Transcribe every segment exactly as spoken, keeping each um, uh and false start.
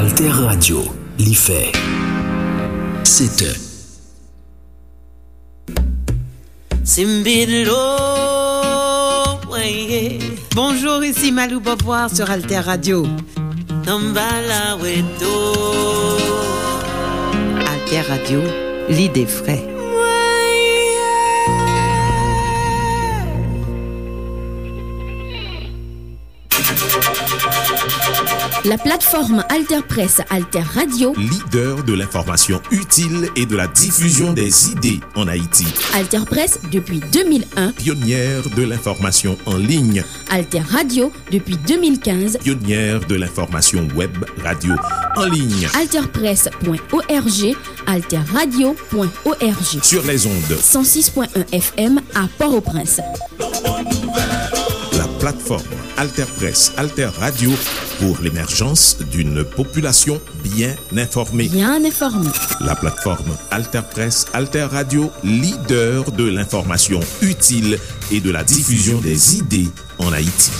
Alter Radio, li fè sèt è. Simbidlo, weye. Bonjour, ici Malou Beauvoir sur Alter Radio. Tambala weto. Alter Radio, l'idée frais. La plateforme Alter Presse, Alter Radio. Leader de l'information utile et de la diffusion des idées en Haïti. Alter Presse depuis deux mille un. Pionnière de l'information en ligne. Alter Radio depuis deux mille quinze. Pionnière de l'information web radio en ligne. Alter Presse point O R G, Alter Radio point O R G. Sur les ondes. Cent six point un F M à Port-au-Prince. La plateforme Alter Presse, Alter Radio pour l'émergence d'une population bien informée. Bien informée. La plateforme Alter Presse, Alter Radio, leader de l'information utile et de la diffusion des idées en Haïti.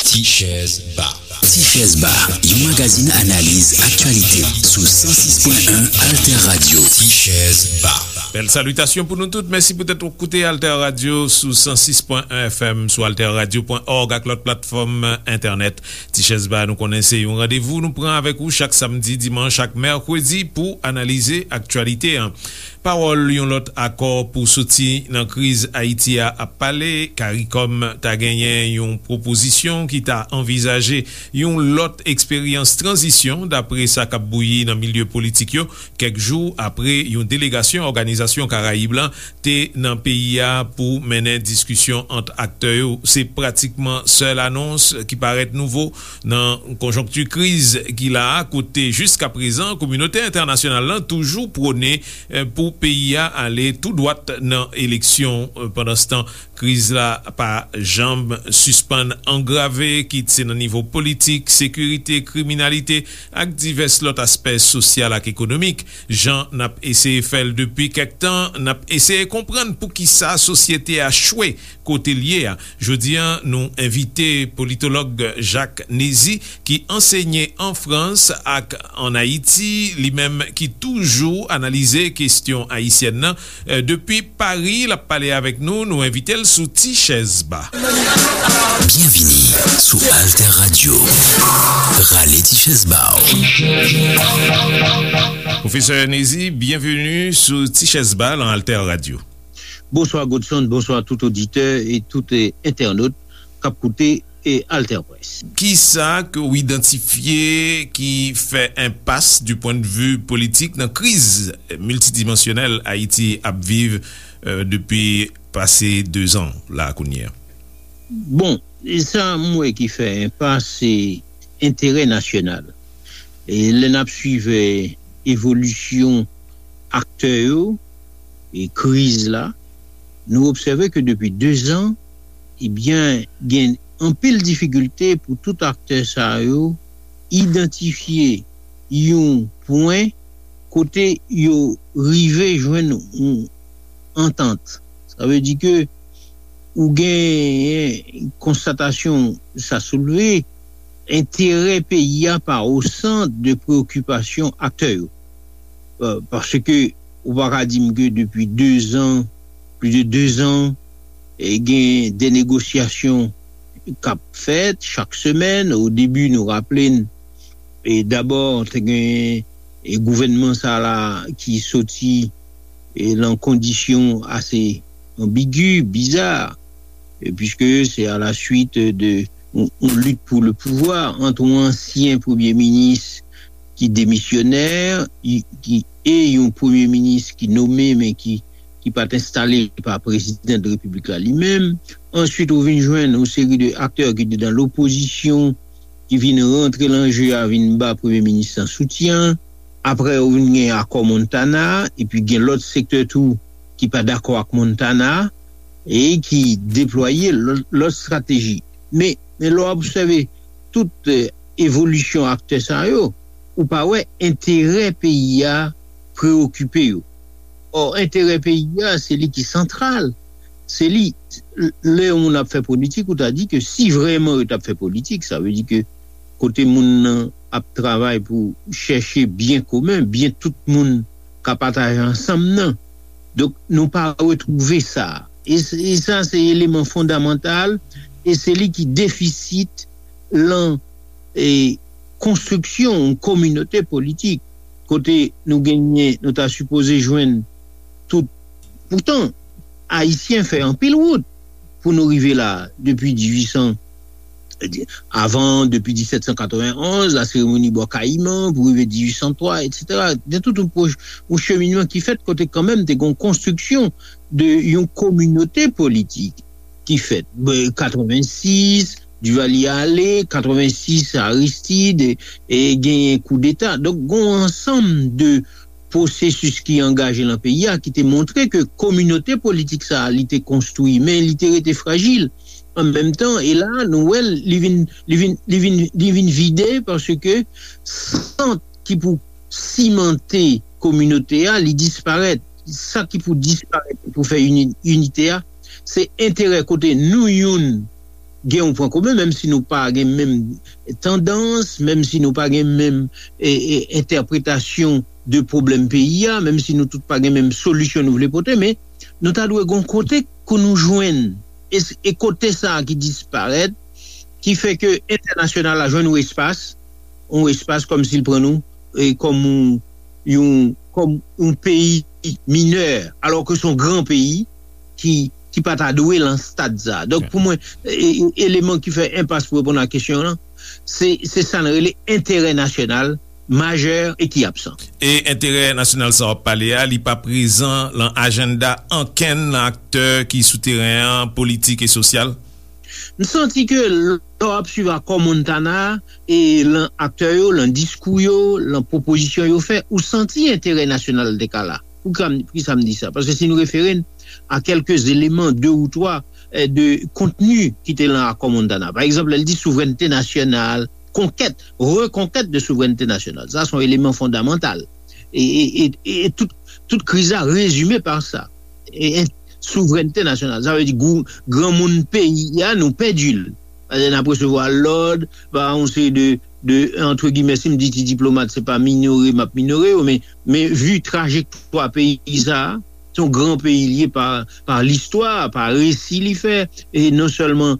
Ti Chèz Ba. Ti Chèz Ba, yon magazin analiz aktyalite sou san sis pwen en Alter Radio. Ti Chèz Ba. Bèl salitasyon pou nou tout. Mèsi poutèt w koute Alter Radio sou san sis pwen en F M, sou alter radio pwen org ak lòt platfòm entènèt. Ti Chèz Ba, nou konnen se yon randevou nou pran avèk ou chak samdi, dimanch ak mèkredi pou analize aktyalite an. Pawòl yon lòt akò pou soti nan kriz Ayiti a ap pale. CARICOM ta genyen yon pwopozisyon ki ta anvizaje yon lòt eksperyans tranzisyon, dapre sa k ap bouyi nan milye politik yo, kèk jou apre yon delegasyon Òganizasyon Karayib lan te nan peyi a pou mennen diskisyon ant aktè yo. Se pratikman sèl anons ki parèt nouvo nan konjonkti kriz ki la a, kote jiskaprezan kominote entènasyonal lan toujou pwone, eh, pou peyi a ale tou dwat nan eleksyon. Eh, pandanstan, kriz la pa janm sispann angrave, kit se nan nivo politik, sekirite, kriminalite, ak divès lòt aspè sosyal ak ekonomik. Jan n ap eseye fè l depi kèk tan, n ap eseye konprann poukisa sosyete a chwe kote l ye a. Jodi a, nou envite politològ Jacques Nézy, ki ansenye an Frans ak ann Ayiti, li menm ki toujou analize kesyon ayisyèn nan. Eh, depi Pari, l ap pale avèk nou, nou envite l sou Ti Chèz Ba. Byenvini sou Alter Radio. Rale ti chèz ba w. Pwofesè Nézy, byenveni sou Ti Chèz Ba lan Alter Radio. Bonswa Godson, bonswa tout oditè e tout, eh, entènot k ap koute, eh, Alter Presse. Kisa ke w idantifye ki fè enpas du point de vue politik nan kriz miltidimansyonèl Ayiti ap viv, eh, depi pase dezan la kounye a? Bon, e sa m wè ki fè enpas, se enterè nasyonal. E lè n ap swiv, eh, evolisyon aktè yo e kriz la, nou obsève ke depi dezan, ebyen, gen anpil difikilte pou tout aktè sa yo idantifye yon pwen kote yo rive jwenn yon antant. Sa vle di ke ou gen konstatasyon sa soulve, enterè peyi a pa o sant de preokipasyon aktè yo. Euh, paske ou pa ka di m ke depi dezan, plis de dezan, e gen de negosyasyon k ap fèt chak semèn. O debi, nou raple n, e dabò, te gen, e gouvènman sa la ki soti, e lan kondisyon ase anbigi, biza, e piske se a la suit de yon, yon lit pou le pouvwa ant yon ansyen premye minis ki demisyonè, i, ki, e yon premye minis ki nome, men ki, ki pa t enstale pa prezidan de repiblik la li menm. Answit, ou vin jwenn yon seri de aktè ki te nan lopozisyon, ki vin rantre lan je a, vin ba premye minis lan soutyen. Apre, ou vin gen akò Montana, epi gen lòt sektè tou ki pa dakò ak Montana, e ki deplwaye lòt, lòt estrateji. Men, men lè w obsève tout, eh, evolisyon aktè sa yo, ou pa wè enterè peyi a preokipe yo. Ò, enterè peyi a, se li ki santral. Se li, lè yon moun ap fè politik, ou ta di ke si vrèman yo t ap fè politik, sa vle di ke kote moun nan ap travay pou chèche byen komen, byen tout moun ka pataje ansanm nan. Donk, nou pa retwouve sa. E, e sa, se eleman fondamantal, e se li ki defisit lan e, konstriksyon yon kominote politik kote nou genyen, nou ta sipoze jwenn tout. Poutan, Ayisyen fè anpil wout pou nou rive la, depi dizuit san, avan, depi disèt san katrevenonz, la seremoni Bò Kayiman, pou rive dizuit san twa, etsetera. Gen tout yon, pwoj- yon cheminman ki fèt kote kanmenm te gen yon konstriksyon de yon kominote politik ki fèt. Katrevensis, Duvalier ale, katrevensis, Aristide, e genyen koudeta. Donk, gen yon ansanm de pwosesis ki angaje lan peyi a, ki te montre ke kominote politik sa a, li te konstwi, men li te rete frajil. An menm tan, e la, nou wè l, li vin, li vin, li vin, li vin vide paske sant ki pou simante kominote a, li disparèt. Sa ki pou disparèt, pou fè ini- inite a, se enterè kote nou youn gen yon pwen komen, menm si nou pa gen menm tandans, menm si nou pa gen menm e, e, entèpretasyon de pwoblèm peyi a, menm si nou tout pa gen menm solisyon nou vle pote, men nou ta dwe gon kote pou nou jwenn. E, e kote sa a ki disparèt, ki fè ke entènasyonal la jwenn yon espas, yon espas kòm si l pran nou e, kòm yon, yon, kòm yon peyi minè, alò ke se yon gran peyi ki, ki pa ta dwe lan stad sa. Donk, pou mwen, e, e, eleman ki fè enpas pou reponn a kesyon an, se, se sa n rele enterè nasyonal majè e ki absan. E enterè nasyonal sa w ap pale a, li pa prezan lan ajanda ankenn nan aktè ki sou teren an, politik e sosyal? M santi ke lè w ap swiv akò Montana e lan aktè yo, lan diskou yo, lan pwopozisyon yo fè, ou santi enterè nasyonal te ka la. Poukisa m di sa? Paske si nou refere n a kèlke eleman, de ou twa, eh, de kontni ki te lan akò Montana. Pa egzanp, lè l di souvrènte nasyonal, konkèt, rekonkèt de souvrènte nasyonal. Sa se yon eleman fondamantal. E, e, e, e tout, tout kriz la rezime pa sa. E, e souvrènte nasyonal, sa vle di gou- granmoun peyi a, nou pèdi l. Paske n ap resevwa lòd pa yon seri de, de, antre gimè, si m di ti diplomat, se pa minore m ap minore yo, men, men vi trajektwa peyi sa a, se yon gran peyi li ye pa, pa listwa, pa resi li fè, e non sèlman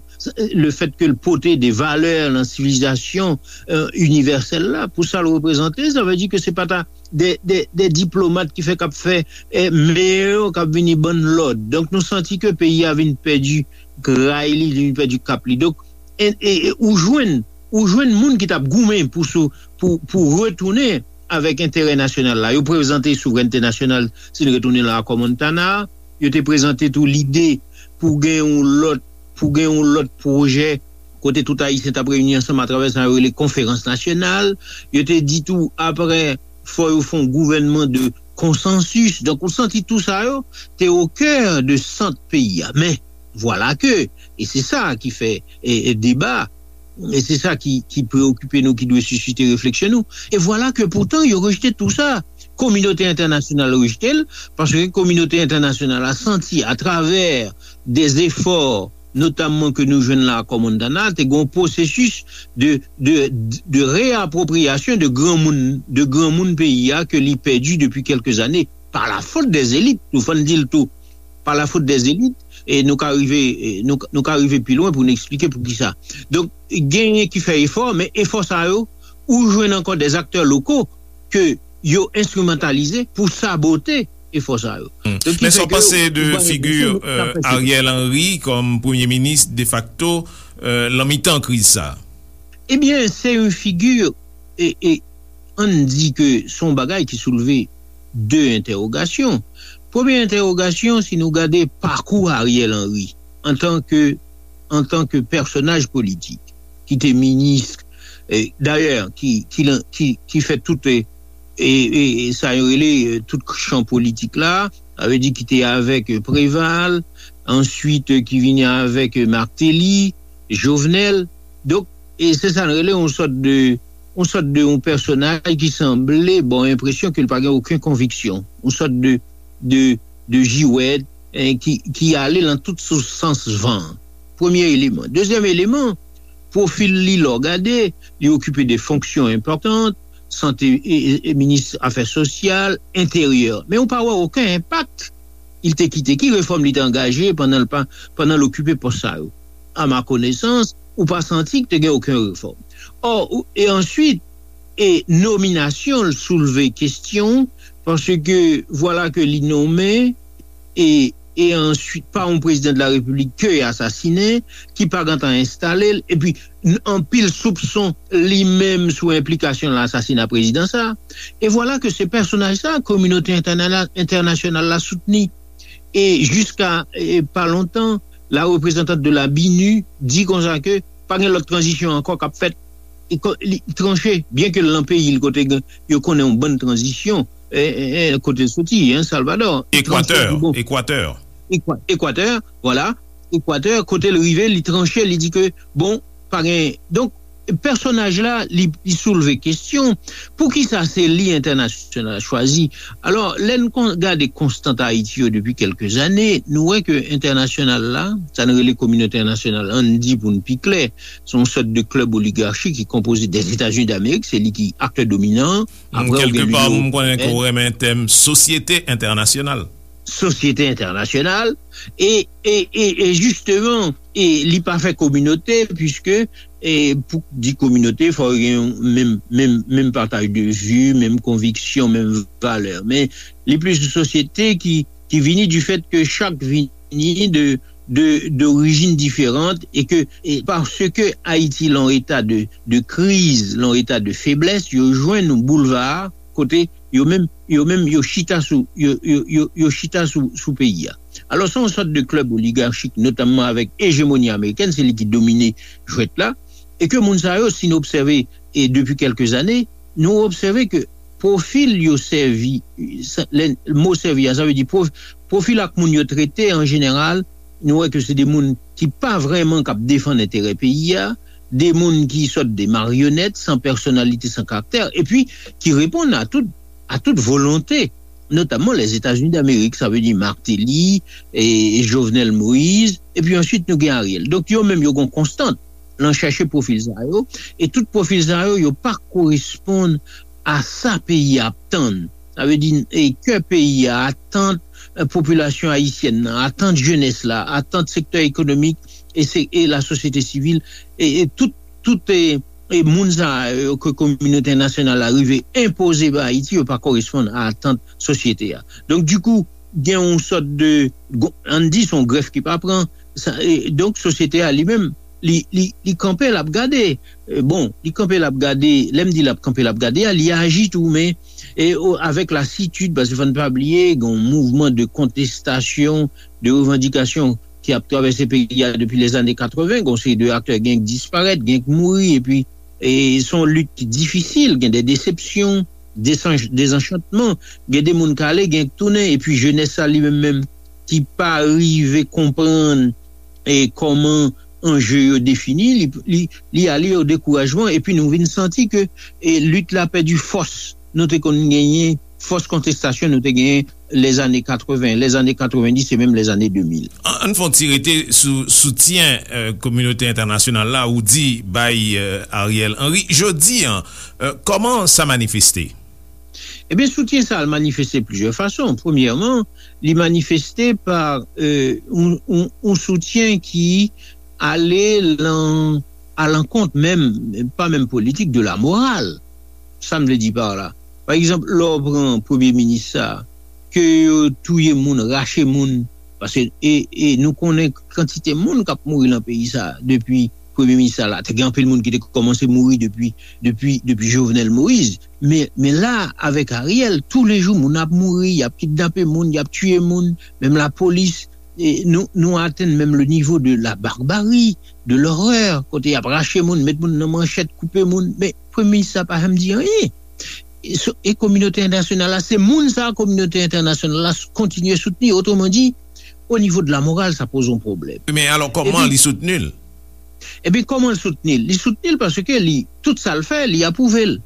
le fèt ke l pote de valè nan sivilizasyon, eh, inivèsèl la, pou sa l reprezante, sa vle di ke se pa ta de, de, de diplomat ki fè k ap fè, eh, meyè yo k ap vini ban n lòd. Donk, nou santi ke peyi a vin pèdi gray li, li vin pèdi kap li. Donk, e, e, e, ou jwenn, ou jwenn moun ki t ap goumen pou sou, pou, pou retounen avèk enterè nasyonal la. Yo prezante souvrènte nasyonal, si n retounen lan akò Montana, yo te prezante tou lide pou gen yon lòt, pou gen yon lòt pwojè kote tout Ayisyen t ap reyini ansanm atravè sa yo rele konferans nasyonal. Yo te di tou, apre, fò yo fè yon gouvènman de konsansis. Donk, ou santi tou sa yo te o kè de sant peyi a. Men, vwala ke, e se sa ki fè, e, e deba, e se sa ki, ki preokipe nou, ki dwe sisite refleksyon nou. E vwala ke poutan, yo rejte tou sa. Kominote entènasyonal rejte l, paske kominote entènasyonal la santi, atravè de zefò, notamman ke nou jwenn la akò Montana, te gen yon pwosesis de, de, de reapwopriyasyon de granmoun, de granmoun peyi a ke li pèdi depi kèlke zane, pa la fot dè zelit, nou fò n di l tou, pa la fot dè zelit, e nou ka rive, e nou, nou ka rive pi lwen pou n eksplike poukisa. Donk, genyen ki fè efò, men efò sa yo, ou jwenn ankò dè aktè loko ke yo enstrimantalize pou sabote efò sa yo. Hmm. Donk, ki Men sa fè w ke panse yo, de yo figi, enpresyon, euh, Ariel Henry kòm premye minis defakto, euh, lan mitan kriz sa? Ebyen, se yon figi, e, e, ann di ke se yon bagay ki soulve de entèwogasyon. Premye entèwogasyon, si nou gade pakou Ariel Henry antan ke, antan ke pèsonaj politik, ki te minis, e, dayè, ki, ki, lan- ki, ki fè tout, e, e, e, e sa yo rele, e, tout chan politik la, sa vle di ki te avèk, e, Préval, answit, e, ki vini avèk, e, Martelly, Jovenel. Donk, e se sa n rele yon sòt de, yon sòt de yon pèsonaj ki sanble ba w enpresyon ke l pa gen okenn konviksyon. Yon sòt de de, de jiwèt, en, ki, ki ale nan tout sou sans van. Premye eleman. Dezyèm eleman, pwofil li, lè w gade, li okipe de fonksyon enpòtan, sante, e, e, e minis afè sosyal, enteryè. Men ou pa wè okenn enpak li te kite. Ki refòm li te angaje pandan l pa, pandan l okipe pòs sa yo? A ma konesans, ou pa santi ke te gen okenn refòm. Ò, ou, e answit, e nominasyon l soulve kesyon, paske vwala ke li nonmen, e, e answit pa yon prezidan de la repiblik ke y asasinen, ki pa gentan enstale l, epi n- anpil soupson li menm sou enplikasyon nan asasina prezidan sa. E vwala ke se pèsonaj sa, kominote entèna- entènasyonal la soutni. E jiska, e, pa lontan, la reprezantant de la binu di konsa ke pa gen lòt tranzisyon ankò k ap fèt. Li ko- li tranche, byen ke l nan peyi l kote gen- yo konnen yon bann tranzisyon, e, e, e, kote l soti, en, Salvador. Li tranche, li di, bon, Ekwatè. Ekwa- Ekwatè, vwala. Ekwatè, kote l rive, li tranche, li di ke, bon, pa gen. Donk, pèsonaj la, li, li soulve kesyon, poukisa se li entènasyonal la chwazi? Alò, lè n kon- gade konstant Ayiti yo depi kèlke zane, nou wè ke entènasyonal la, sa n rele kominote entènasyonal, ann di pou n pi klè, se yon sòt de klèb oligachi ki konpoze dèzetazini damerik, se li ki aktè dominan. Apre, ou gen Kèlkepa, linyon m konnen ke ewopeyen. Ou renmen tèm sosyete entènasyonal. Sosyete entènasyonal, e, e, e, e jisteman, e li pa fè kominote, piske, e pou di kominote, fò gen yon menm, menm, menm pataj de vi, menm konviksyon, menm valè. Men li plis yon sosyete ki, ki vini du fèt ke chak vini de, de, d'orijin diferan, e ke, e paske Ayiti lan eta de, de kriz, lan eta de feblès, yo jwenn yon boulva kote yo menm, yo menm, yo chita sou, yo, yo, yo, yo chita sou, sou peyi a. Alò, se yon sòt de klèb oligachik, notamman avèk ejemoni amerikèn, se li ki domine jwèt la, e ke moun sa yo, si nou obsève, e depi kèlke zane, nou obsève ke pwofil yo sèvi, sa- lè mo sèvi a, sa vle di pwof- pwofil ak moun yo trete an jeneral, nou wè ke se de moun ki pa vrèman k ap defann enterè peyi a, de moun ki sòt de maryonèt, san pèsonalite, san karaktè, epi ki reponn a tout, a tout volonte, notamman Lèzetazini Damerik, sa vle di Martelly, e Jovenel Moïse, epi answit nou gen Ariel. Donk yo menm yo gen yon konstant lan chèche pwofil sa yo, e tout pwofil sa yo, yo pa koresponn a sa peyi a ap tann. Sa vle di, e kè peyi a, atant, e, popilasyon ayisyèn nan, atant jenès la, atant sektè ekonomik e, se, e lasosyete sivil, e, e tout, tout e, e moun sa yo ke kominote entènasyonal la rive enpoze ba Ayiti, yo pa koresponn a atant sosyete a. Donk, dikou, gen yon sòt de, ann di, se yon grèf ki pa pran, sa, e, donk, sosyete a li menm, li, li, li kanpe, l ap gade. E, bon, li kanpe, l ap gade. Lè m di l ap kanpe, l ap gade a, li aji tou, men e, o, avèk lasitid, paske fò n pa bliye, gen yon mouvman de kontestasyon, de revandikasyon ki ap travèse peyi a depi lèzane katreven, gen yon seri de aktè, gen k disparèt, gen k mouri, epi, e, se yon lit ki difisil, gen de desepsyon, desanch- dezanchantman, gen de moun k ale, gen k tounen, epi jenès sa li menm menm ki pa rive konprann, e, kòman anje yo defini, li, li, li ale o dekourajman, epi nou vin santi ke, e, lit la pèdi fòs nou te konn genyen, fòs kontestasyon nou te genyen lèzane katreven, lèzane katrevenndis e menm lèzane de mil. Ann fè yon ti rete sou soutyen, e, kominote entènasyonal la ou di bay, e, Ariel Henry. Jodi a, e, kòman sa manifeste? Ebyen, soutyen sa a manifeste plizyè fason. Premyèman, li manifeste pa, e, yon, yon, yon soutyen ki ale lan, alankont menm, pa menm politik, de la morale. Sa m vle di pa la. Pa egzanp, lè w pran premye minis sa, ke yo touye moun, rache moun, paske, e, e nou konnen kantite moun k ap mouri lan peyi sa depi premye minis sa la. Te gen anpil moun ki te kòmanse mouri depi, depi, depi Jovenel Moïse. Men, men la, avèk Ariel, toulejou moun ap mouri, y ap kidnape moun, y ap tiye moun, menm lapolis, e nou, nou atenn menm le nivo de la barbari, de lòrè, kote y ap rache moun, met moun nan manchèt, koupe moun. Men premye minis sa pa janm di anyen. E so- e kominote entènasyonal la, se moun sa a kominote entènasyonal la s- kontinye soutni. Otreman di, o nivo de la moral, sa poze yon pwoblèm. Men alò, kòman li soutni l? Ebyen, kòman l soutni l? Li soutni l paske li, tout sa l fè, li apwouve l.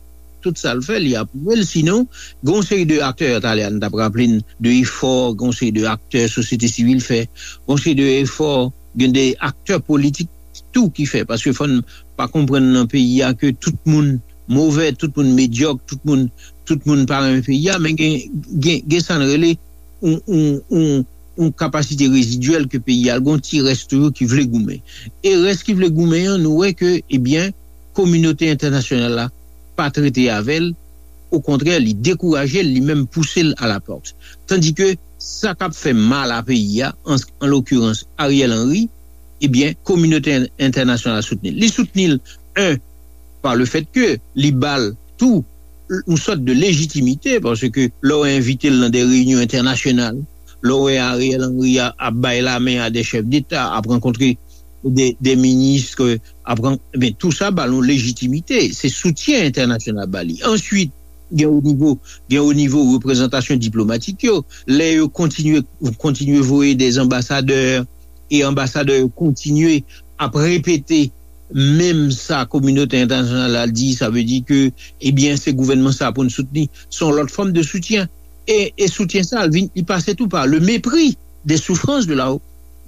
tout sa l fè, li apwouve l. Sinon, gen yon seri de aktè, talè a, n t ap raple n de efò, gen yon seri de aktè sosyete sivil fè, gen yon seri de efò, gen de aktè politik tou ki fè, paske fò n pa konprann nan peyi a ke tout moun move, tout moun medyòk, tout moun, tout moun pa renmen peyi a, men gen, gen, gen sa n rele yon, yon, yon, yon kapasite rezidyèl ke peyi a, gen yon ti rès toujou ki vle goumen. E rès ki vle goumen an, nou wè ke, ebyen, kominote entènasyonal la pa trete avè l, okontrè, li dekouraje l, li menm pouse l a la pòt. Tandike sa k ap fè mal a peyi a, an, an lokirans Ariel Henry, ebyen, kominote en- entènasyonal soutni l. Li soutni l, en, pa le fèt ke li ba l tou yon sòt de lejitimite, paske lè w envite l nan de reyinyon entènasyonal, lè w wè Ariel Henry a- ap bay lamen a de chèf deta, ap rankontre de, de minis, ke ap ran- ben, tou sa ba l yon lejitimite. Se soutyen entènasyonal ba li. Answit, gen o nivo, gen o nivo reprezantasyon diplomatik yo, lè yo kontinye, kontinye voye de anbasadè, e anbasadè yo kontinye ap repete menm sa kominote entènasyonal la di, sa vle di ke, ebyen, se gouvènman sa pou n soutni. Se yon lòt fòm de soutyen. E, e soutyen sa, li vin, li pase tou pa le mépris des souffrances de la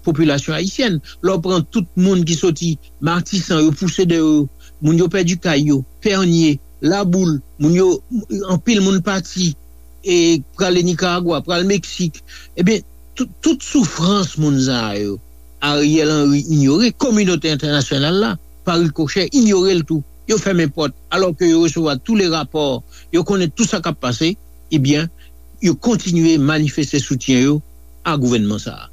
population haïtienne. Lè w pran tout moun ki soti Matisan, yo pouse dèyè yo, moun yo pèdi kay yo, Pènye, Laboul, moun yo, anpil moun pati, e prale Nikaragwa, pral Meksik. Ebyen, tout, tout soufrans moun sa yo, Ariel Henry inyore, kominote entènasyonal la, pa rikochè, inyore l tou. Yo fèmen pòt, alò ke yo resevwa tou le rapò, yo konnen tou sa k ap pase, ebyen, yo kontinye manifeste soutyen yo a gouvènman sa a.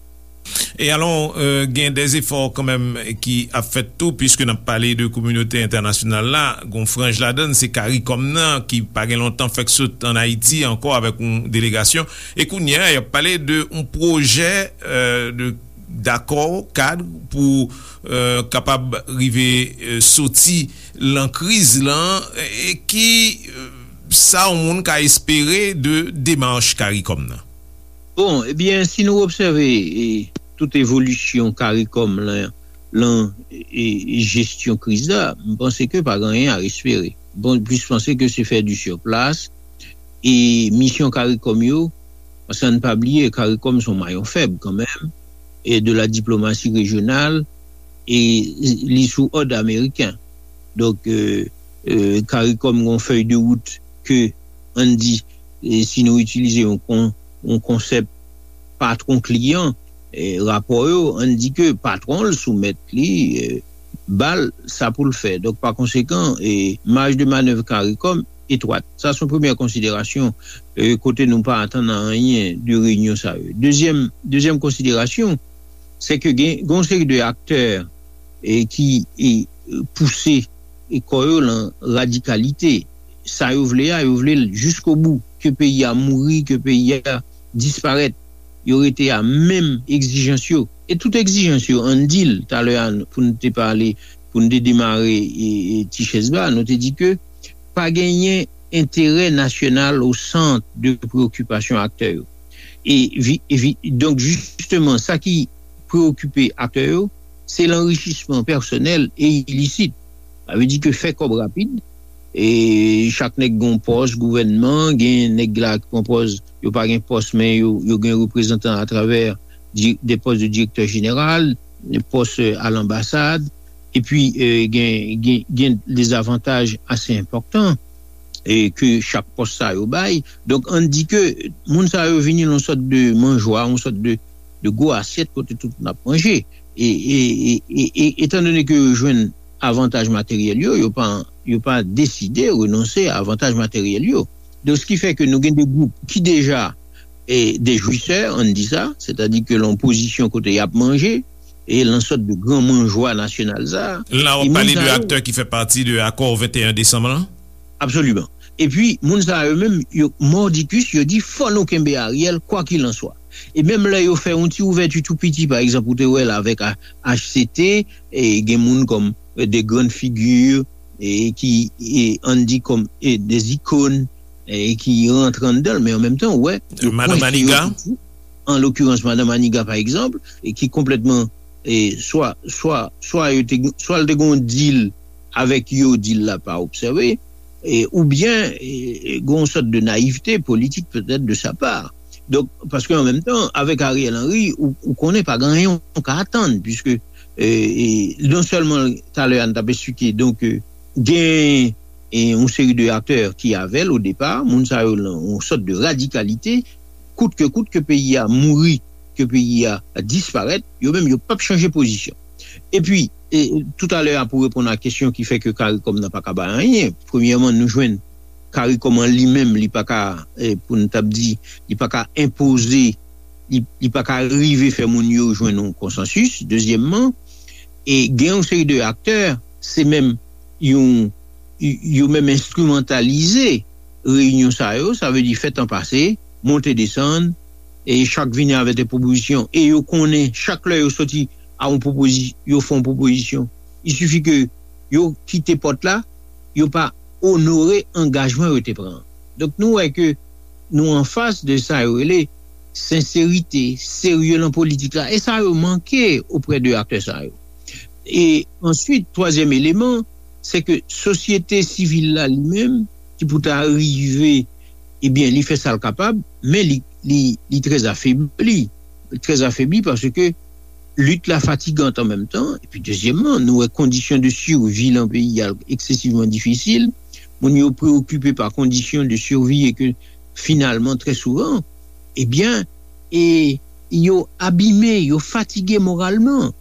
E alò, euh, gen de efò kanmenm ki ap fèt tou, piske n ap pale de kominote entènasyonal la, gon franj ladann, se Karikòm nan, ki pa gen lontan fèk sot an Ayiti ankò avèk yon delegasyon. E kounye a, y ap pale de yon pwojè, euh, de dakò kad pou, euh, kapab rive, euh, soti lan kriz lan, e ki, euh, sa yon moun ka espere de demach Karikòm nan? Bon, ebyen, si nou obsève, e, tout evolisyon Karikòm lan, lan, e, e, jesyon kriz la, m panse ke pa gen anyen a espere. Bon, plis panse ke se fè di sur plas, e misyon Karikòm yo, paske ann pa bliye, Karikòm se yon mayon fèb kanmenm, e de la diplomasi rejyonal, e li sou òd ameriken. Donk, e, e, Karikòm gen yon fèy de wout ke, ann di, e si nou itilize yon, kon, yon konsèp patwon kliyan, e, rapò yo, ann di ke patwon l soumèt li, e, ba l sa pou l fè. Donk, pa konsekan, e, maj de manèv Karikòm etwat. Sa se yon premyè konsiderasyon, e, kote nou pa atann anyen de reyinyon sa yo. Dezyèm, dezyèm konsiderasyon, se ke gen, gen yon seri de aktè, e, ki, e, pouse, e, kò yo lan radikalite. Sa yo vle a, yo vle l jiskobou, ke peyi a mouri, ke peyi a disparèt. Yo rete a menm egzijans yo. E tout egzijans yo, ann di l, talè a, pou n te pale, pou n te demare, e, e, ti chèz ba, nou te di ke pa genyen enterè nasyonal o sant de preyokipasyon aktè yo. E, vi- e vi- donk, jisteman, sa ki preyokipe aktè yo, se lanrichisman pèsonèl e ilisit. Sa vle di ke fè kòb rapid, e chak nèg gen yon pòs gouvènman, gen nèg la ki pran pòz, yo pa gen pòs, men yo, yo gen reprezantan atravè di- de pòs de direktè jeneral, de pòs, e, a lanbasad, epi, e, gen, gen, gen de zavantaj ase enpòtan, e, ke chak pòs sa yo bay. Donk, ann di ke moun sa yo vini nan yon sòt de manjwa, yon sòt de, de gwo asyèt kote tout moun ap manje. E, e, e, e, e, etandone ke yo jwenn avantaj materyèl yo, yo pa, yo pa deside renonse a avantaj materyèl yo. Donk, se ki fè ke nou gen de gwoup ki deja, e, de jwisè, ann di sa, sètadi ke lan pozisyon kote y ap manje, e lan sòt de gran manjwa nasyonal sa. La, w ap pale de aktè ki fè pati de akò venteyen desanm lan? Absoliman. Epi, moun sa yo menm, yo mòdikis, yo di, fò nou kenbe Ariel, kwakilanswa. E menm lè yo fè yon ti ouvèti tou piti, pa egzanp, ou te wè l avèk A- H C T, e gen moun kòm, e, de grann figi, e ki, e, ann di kòm, e, de zikòn, e ki rantre anndan l, men an menm tan, ou wè, yo Madan kwense yo Maniga. Toujou an lokirans, Madan Maniga, pa egzanp, e ki konplètman, e, swa, swa, swa yo te, swa l te gen yon dil avèk yo, dil la pa obsève, e, oubyen e, e, gen yon sòt de nayivte politik petèt de sa pa. Donk, paske an menm tan, avèk Ariel Henry, ou, ou konnen pa gen anyen ou ka atann, piske e, e, non sèlman talè a n t ap esplike, donk, e, gen e, yon seri de aktè ki avè l o depa, moun sa yo nan yon sòt de radikalite, kout ke kout ke peyi a mouri, ke peyi a disparèt, yo menm yo p ap chanje pozisyon. Epi, e, toutalè a pou reponn a kesyon ki fè ke CARICOM nan pa ka bay anyen, premyèman, nou jwenn CARICOM an li menm, li pa ka, e, pou n t ap di, li pa ka enpoze, li, li pa ka rive fè moun yo jwenn yon konsansis. Dezyèmman, e gen yon seri de aktè, se menm yon, yo menm enstrimantalize reyinyon sa yo, sa vle di fè tan pase, monte desann, e chak vini avèk de pwopozisyon, e yo konnen chak lè yo soti a yon pwopozi-, yo fè yon pwopozisyon, il suffit ke yo kite pòt la, yo pa onore angajman yo te pran. Donk nou wè ke nou anfas de sa yo rele senserite, serye nan politik la, e sa yo manke oprè de aktè sa yo. E answit, twazyèm eleman, se ke sosyete sivil la li menm, ki pou ta rive, ebyen, li fè sa l kapab, men li, li, li trè afebli. Trè afebli paske lit la fatigan an menm tan. Epi, dezyèmman, nou wè kondisyon de sivi nan peyi a eksesivman difisil. Moun yo preokipe pa kondisyon de sivi e ke, finalman, trè souvan, ebyen, e yo abime, yo fatige moralman.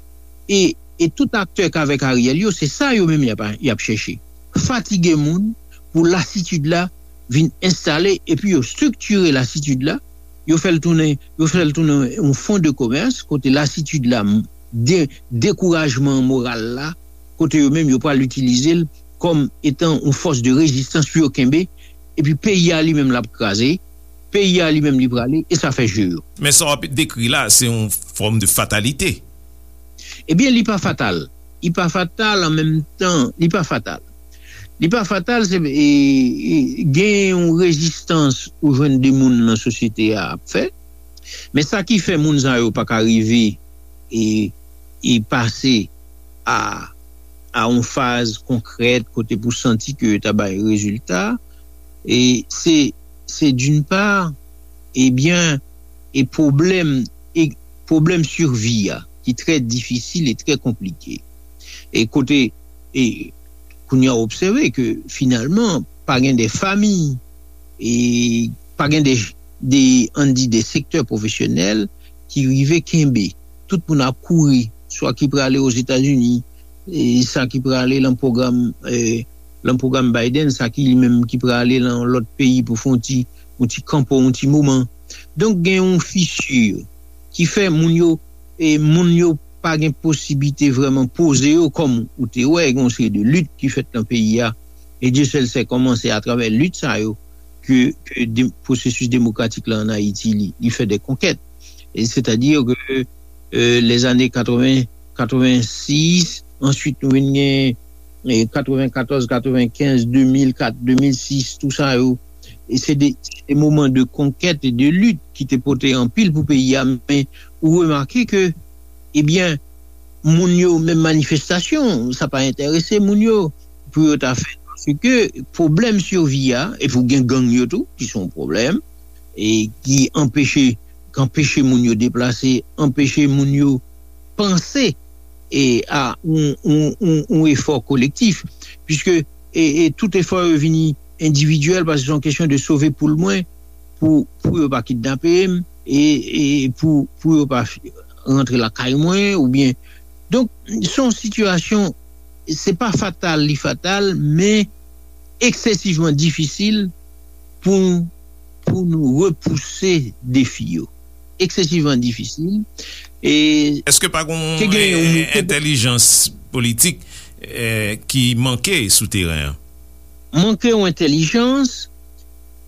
E, e tout aktè k avèk Ariel yo, se sa yo menm y ap, y ap chèche. Fatige moun pou lasitid la vin enstale, epi yo estriktire lasitid la, yo fè l tounen, yo fè l tounen yon fon de komès, kote lasitid la, de, dekourajman moral la, kote yo menm yo pral itilize l kòm etan yon fòs de rezistans pou yo kenbe, epi peyi a li menm l ap kraze, peyi a li menm li prale, e sa fè je yo. Men sa w ap dekri la, se yon fòm de fatalite. Ebyen, li pa fatal. Li pa fatal an menm tan, li pa fatal. Li pa fatal, se, e, e, gen yon rezistans ou jwenn de moun nan sosyete a ap fè, men sa ki fè moun sa yo pa ka rive e, e pase a, a yon faz konkrèt kote pou santi ke yo ta bay rezilta, e se, se d'une part, ebyen, e pwoblèm, e pwoblèm sivi a, ki trè difisil e trè konplike. E kote, e kounye a w obsève ke finalman, pa gen de fanmi, e pa gen de, de, ann di, de sektè pwofesyonèl ki rive kenbe. Tout moun ap kouri, swa ki prale Ozetazini, e sa ki prale lan pwogram, e, lan pwogram Biden, sa ki li menm ki prale lan lòt peyi pou fè yon ti, yon ti kanpo, yon ti moman. Donk, gen yon fisi ki fè moun yo, e moun yo pa gen posiblite vrèman poze yo, kòm ou te wè, gen yon seri de lit ki fèt nan peyi a. E Dye sèl sè kòman se atravè lit sa yo ke, ke de, pwosesis demokratik la ann Ayiti, li, li fè de konkèt. E sètadi ke, e, lèzane katreven, katrevensis, answit nou vin gen, e, katrevenkatòz, katrevenkenz, de mil kat, de mil sis, tou sa yo. E se de, se de moman de konkèt e de lit ki te pote anpil pou peyi a, men ou remake ke, ebyen, moun yo, menm manifestasyon, sa pa enterese moun yo pou yo ta fè. Paske pwoblèm sivi a, epi w gen gang yo tou, ki se yon pwoblèm, e ki anpeche, ki anpeche moun yo deplase, anpeche moun yo panse e a yon, yon, yon, yon efò kolektif, piske e, e tout efò yo vini endividyèl, paske se yon kesyon de sove poul mwen, pou, pou yo pa kidnape m, e, e pou, pou yo pa f-, rantre lakay mwen, oubyen. Donk, se yon sitiyasyon, se pa fatal, li fatal, men eksesivman difisil pou, pou nou repouse defi yo. Eksesivman difisil. E Èske pa gen yon, ke gen yon, eh, entèlijans politik, eh, ki manke sou teren an? Manke yon entèlijans,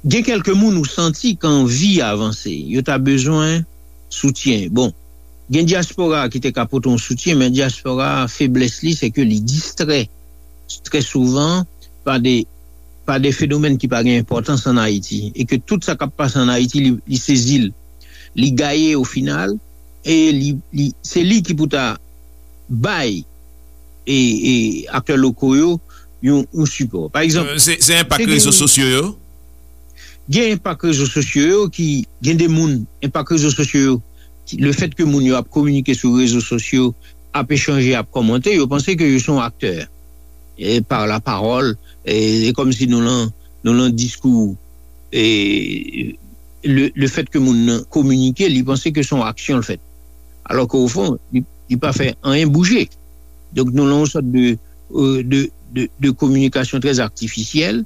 gen kèlke moun ou santi ki anvi avanse, yo ta bezwen soutyen. Bon, gen dyaspora ki te ka pote yon soutyen, men dyaspora, feblès li, se ke li distrè trè souvan pa de, pa de fenomèn ki pa gen enpòtans ann Ayiti, e ke tout sa k ap pase ann Ayiti, li, li sezi l, li gaye o final, e li, li, se li ki pou ta bay e, e aktè loko yo yon, yon sipò. Pa egzanp, se enpak rezo sosyo yo? Gen enpak rezo sosyo yo ki, gen de moun, enpak rezo sosyo yo, le fèt ke moun yo ap kominike sou rezo sosyo, ap echanje, ap kòmante, yo panse ke yo se yon aktè. E pa la pawòl, e, e kòmsi nou lan, nou lan diskou, e le, le fèt ke moun nan kominike, li panse ke se yon aksyon l fèt. Alò ke o fon, li, li pa fè anyen bouje. Donk nou lan yon sòt de, de, de, de kominikasyon trè atifisyèl,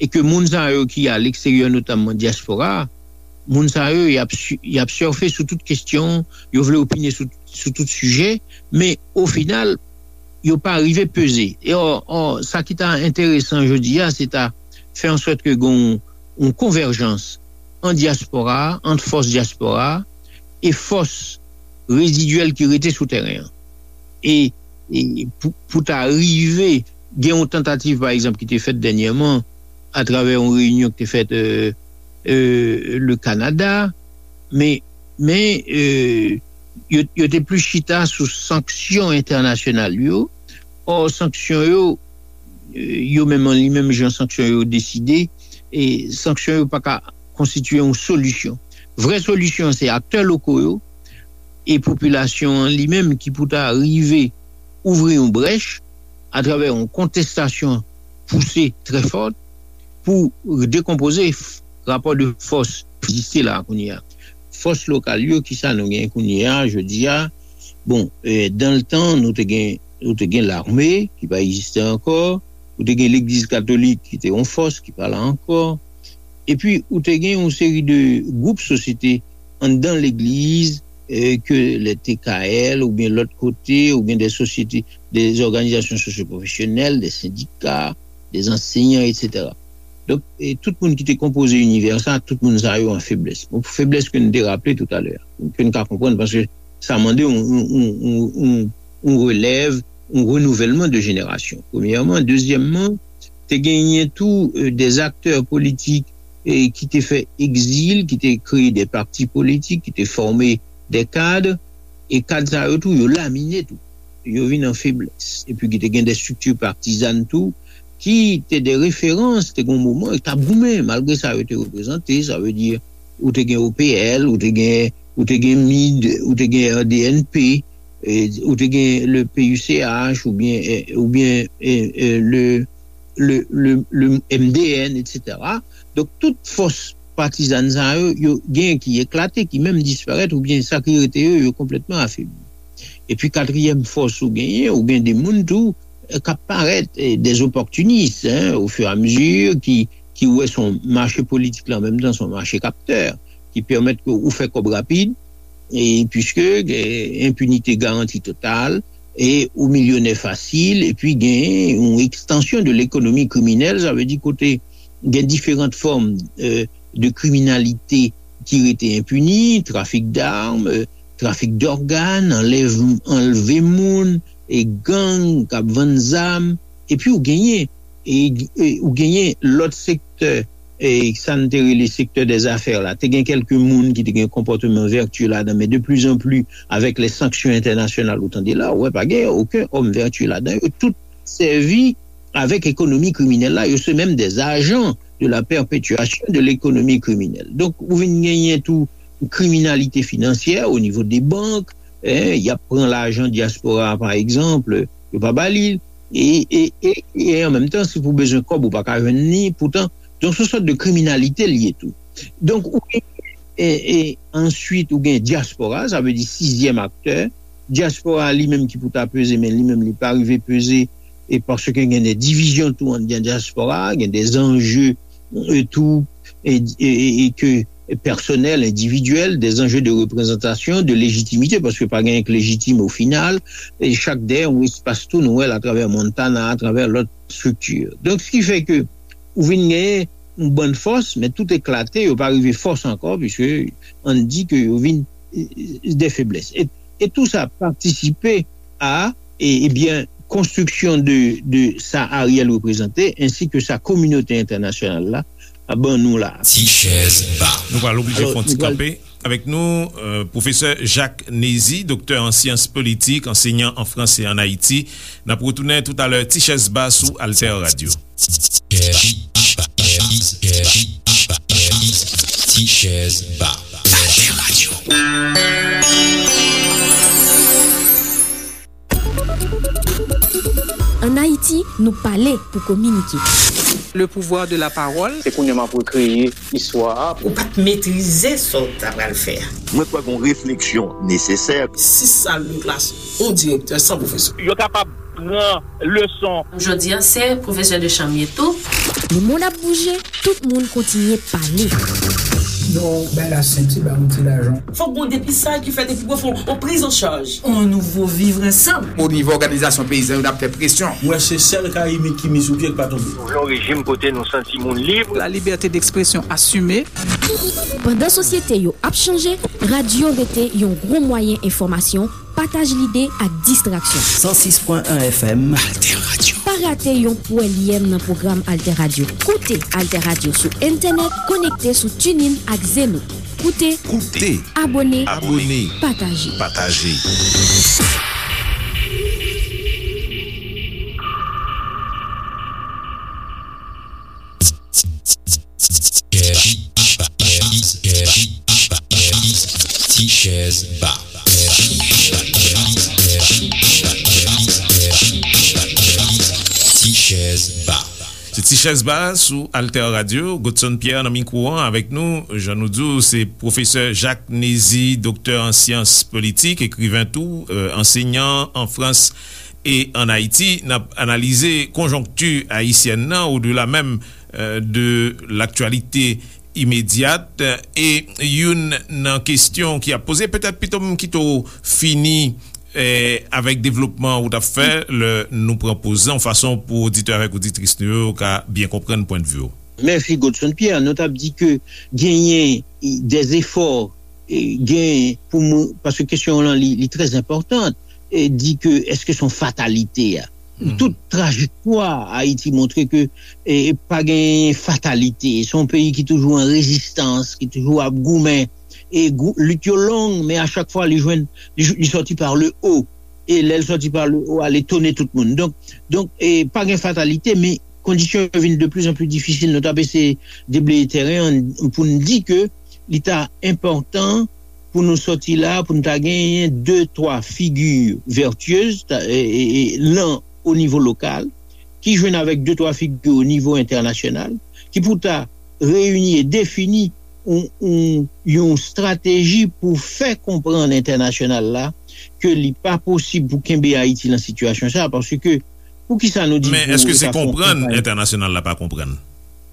e ke moun sa yo ki a leksteryè, notamman dyaspora, moun sa yo, y ap, y ap sèfe sou tout kesyon, yo vle opine sou, sou tout sijè, men o final, yo pa rive peze. E ò, ò, sa ki ta enteresan jodi a, se ta fè an sòt ke gen yon konvèjans an dyaspora, ant fòs dyaspora e fòs rezidyèl ki rete sou teren an. E, e pou, pou ta rive gen yon tantativ, pa egzanp, ki te fèt dènyèman atravè yon reyinyon ki te fèt euh, euh, le Kanada, men, men euh, yo, yo te plis chita sou sanksyon entènasyonal yo. Ò, sanksyon yo, euh, yo menm an li menm jan sanksyon yo deside, e sanksyon yo pa ka konstitye yon solisyon. Vrè solisyon se aktè loko yo e popilasyon an li menm ki pou ta rive ouvri yon brèch atravè yon kontestasyon pouse trè fòt pou dekonpoze rapò de fòs ki egziste la kounye a. Fòs lokal yo, kisa nou gen kounye a jodi a? Bon, dan le tan nou te gen, nou te gen lame ki pa egziste ankò, ou te gen legliz katolik ki te yon fòs ki pa la ankò, epi ou te gen yon seri de gwoup sosyete anndan legliz, ke le T K L oubyen lòt kote, ou gen de sosyete, de òganizasyon sosyopwofesyonèl, de sendika, de ansenyan, etsetera. Donk, tout moun ki te konpoze inivè sa, tout moun sa yo an feblès. Bon, feblès ke nou te raple toutalè, ke nou ka konprann paske sa mande yon, yon, yon, yon, yon relèv, yon renouvèlman de jenerasyon. Premyèman. Dezyèmman, te genyen tou de aktè politik ki te fè egzil, ki te kreye de pati politik, ki te fòme de kad, e kad sa yo tou, yo lamine tou. Yo vin an feblès. Epi ki te gen de estrikti patizàn tou, ki te de referans, te gen yon moman, yo t ap goumen, malgre sa yo te reprezante, sa vle di, ou te gen O P L, ou te gen, ou te gen mid, ou te gen R D N P, ou te gen le P U C H, oubyen, oubyen le, le, le, le M D N, etsetera. Donk, tout fòs patizàn sa yo, yo gen ki eklate, ki menm disparèt, oubyen sa ki rete yo, yo konplètman afebli. Epi katriyèm fòs ou genyen, ou gen de moun tou k ap parèt, de opòtinis, ofiramizi ki, ki wè se yon mache politik la, an menm tan se yon mache kaptè, ki pèmèt ke ou fè kòb rapid, e piske enpinite garanti total, e ou milyonè fasil, epi gen yon ekstansyon de lekonomi kriminèl, sa vle di kote gen diferan fòm de kriminalite ki rete enpini, trafik dam, trafik dògàn, anlèv, anlve moun, e gang k ap vann zam, epi ou genyen, e, e ou genyen lòt sektè, e sa n te rele sektè dèzafè la. Te gen kèlke moun ki te gen konpòteman vètyè ladan, men de pli an pli, avèk lè sanksyon entènasyonal, ou tande la, ou wè pa gen okenn òm vètyè ladan. Yo tout sèvi avèk ekonomi kriminèl la, yo se menm dè ajan de la pèpetyasyon de lekonomi kriminèl. Donk, ou vin genyen tou kriminalite finansyè o nivo de bank, en, y ap pran lajan dyaspora a, pa egzanp, yo pa ba li l, e, e, e, e an menm tan, si pou bezwen kòb, ou pa ka jwenn li, poutan, donk, se yon sòt de kriminalite l ye tou. Donk, ou gen, e, e, answit, ou gen dyaspora, sa vle di sizyèm aktè, dyaspora li menm ki pou ta peze, men li menm li pa rive peze, e paske gen de divizyon tou anndan dyaspora, gen de zanje, e tou, e, e, e, e ke pèsonèl, endividyèl, de zanje de reprezantasyon, de lejitimite, paske pa gen k lejitim o final, e chak dèyè yon espas tou nou wè l atravè Montana, atravè lòt estrikti. Donk, sa ki fè ke ou vin genyen yon bann fòs, men tout eklate, yo pa rive fòs ankò, piske ann di ke yo vin, e, e, de feblès. E, e tou sa patisipe a, e, ebyen, konstriksyon de, de sa Ariel reprezante, ensi ke sa kominote entènasyonal la ap ban nou la. Ti chèz ba. Nou pral oblije fè yon ti kanpe. Avèk nou, euh, pwofesè Jacques Nézy, doktè an syans politik, ansenyan an Frans e an Ayiti. N ap retounen toutalè, Ti Chèz Ba sou Alter Radio. Ti Chèz Ba. Alter Radio. Ann Ayiti, nou pale pou kominike. Le pouvoir de la parole. Se kounye a m ap rekreye istwa a. Ou pa t metrize sa w ta pral fè a. Mwen kwè gen yon refleksyon nesesè. Sis sal de klas, yon direktè, san pwofesè. Yo kapab pran leson. Jodi a, se pwofesè de chanm ye tou. Lemonn ap bouje, tout moun kontinye pale. Non, bay la senti, ba yon ti lajan. Fòk gon depistaj ki fèt epi pou fè yon priz an chaj. On nouvo vivre ensemble. O nivo òganizasyon peyizan yo, n ap fè presyon. M wè se sèl Karayibik ki mi sou pye k pa tonbe. Nou vle yon rejim kote nou santi moun lib. La liberté d'expression assumée. Pandan sosyete yo ap chanje, radyo rete yon gwo mwayen enfòmasyon, pataj lide ak distraksyon. San sis pwen en F M. Alter Radio. Pa rate yon pwèlyèm nan pwogram Alter Radio. Koute Alter Radio sou entènèt, konekte sou TuneIn ak Zeno. Koute, koute, abòne, abòne, pataje. Pataje. Ti Chèz Ba. Ti Chèz Ba. Se Ti Chèz Ba sou Alter Radio. Godson Pierre nan mikwo an avèk nou. Jan nou di w, se pwofesè Jacques Nézy, doktè an syans politik, ekriven tou, euh, ansenyan an Frans e an Ayiti. N ap analize konjonkti ayisyèn nan, odela menm, euh, de laktyalite imedyat. E youn nan kesyon ki ap poze, petèt pito m kite w fini, eh, avèk devlopman ou t ap fè, lè nou pran poz lan, yon fason pou oditè avèk oditris nou yo ka byen konprann pwennvi w. Mèsi, Godson Pierre. Nou t ap di ke genyen de zefò, eh, genyen pou moun, paske kesyon lan li, li trè enpòtan, eh, di ke èske se yon fatalite a? Tout trajektwa Ayiti montre ke, eh, pa gen fatalite. Se yon peyi ki toujou an rezistans, ki toujou ap goumen. E gou-, lit yo long, men a chak fwa li jwenn, li, li sòti par le haut. E lè l sòti par le haut a, li etone tout moun. Donk, donk, eh, pa gen fatalite, men kondisyon yo vin de plus en plus difisil. Nou t ap eseye debleye tèren an pou n di ke li ta enpòtan pou nou sòti la, pou nou ta genyen de, twa figi vètyez, ta, e, e, e, lan o nivo lokal, ki jwenn avèk de, twa figi o nivo entènasyonal, ki pou ta reyini e defini yon, yon, yon estrateji pou fè konprann entènasyonal la ke li pa posib pou kenbe Ayiti lan sitiyasyon sa, paske poukisa nou di Men pou èske se konprann entènasyonal la pa konprann?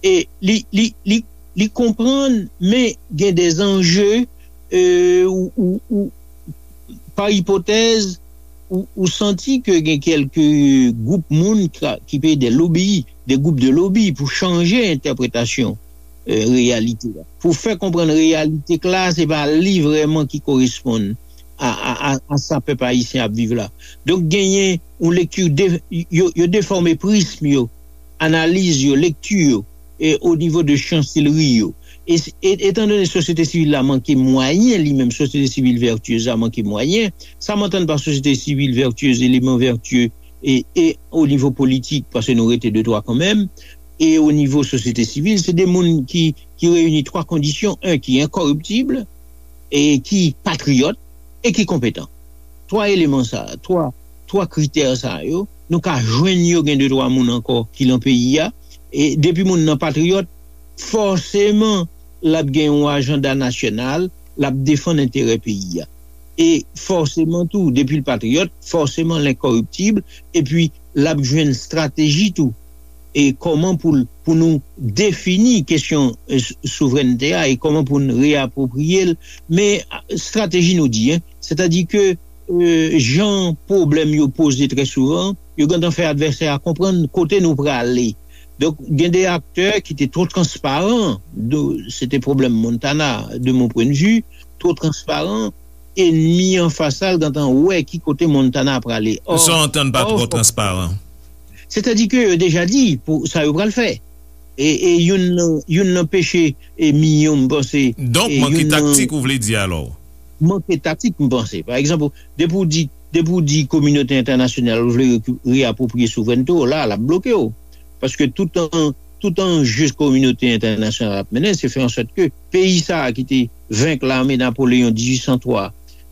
E li, li, li, li konprann, men gen de zanje, euh, ou, ou, ou, pa ipotèz, ou, ou santi ke gen kèlke gwoup moun ka, ki peye de lobi, de gwoup de lobi pou chanje entèpretasyon, euh, reyalite a. Pou fè konprann reyalite k la, se pa li vrèman ki koresponn a, a, a, a sa pèp ayisyen ap viv la. Donk, genyen yon lekti de, yo, yo defòme prism yo, analiz yo, lekti yo, e o nivo de chanselri yo. E, e, etandone sosyete sivil la manke mwayen, li menm, sosyete sivil vètyez la manke mwayen, sa m antann pa sosyete sivil vètyez, eleman vètye, e, e o nivo politik, paske nou rete de twa kanmenm, e o nivo sosyete sivil, se de moun ki, ki reyini twa kondisyon, en, ki enkòriptib, e ki patriyòt, e ki konpetan. Twa eleman sa, twa, twa kritè sa yo, nou ka jwenn yo, gen de twa moun ankò ki lan peyi a. E depi moun nan patriyòt, fòseman, l ap gen yon ajanda nasyonal, l ap defann enterè peyi a. E fòseman tou, depi l patriyòt, fòseman l enkòriptib, epi l ap jwenn estrateji tou. E kòman pou l, pou nou defini kesyon, e, s-, souvrènte a e kòman pou n reyapwopriye l, men, a, estrateji nou di, en, sètadi ke, e, jan pwoblèm yo poze trè souvan, yo gentan fè advèsè a konprann kote nou prale. Donk, gen de aktè ki te twò transparan, de, se te pwoblèm Montana, de mon pwennvi, twò transparan, enmi anfas la, l gentan wè ki kote Montana prale. Ò, sa w antann pa ò, twò fòk transparan? Sètadi ke yo deja di pou sa yo pral fè. E, e youn nan, youn nan peche e milyon, m panse, Donk, e manke youn nan taktik, ou vle di alò? Manke taktik, m panse. Pa egzanp, depi w di, depi w di kominote entènasyonal ou vle reku- reapwopriye souvrènte w, la, l ap bloke w. Paske tout an, tout anje kominote entènasyonal ap mennen, se fè an sòt ke peyi sa a ki te venk lame Napoleyon dizuit san twa,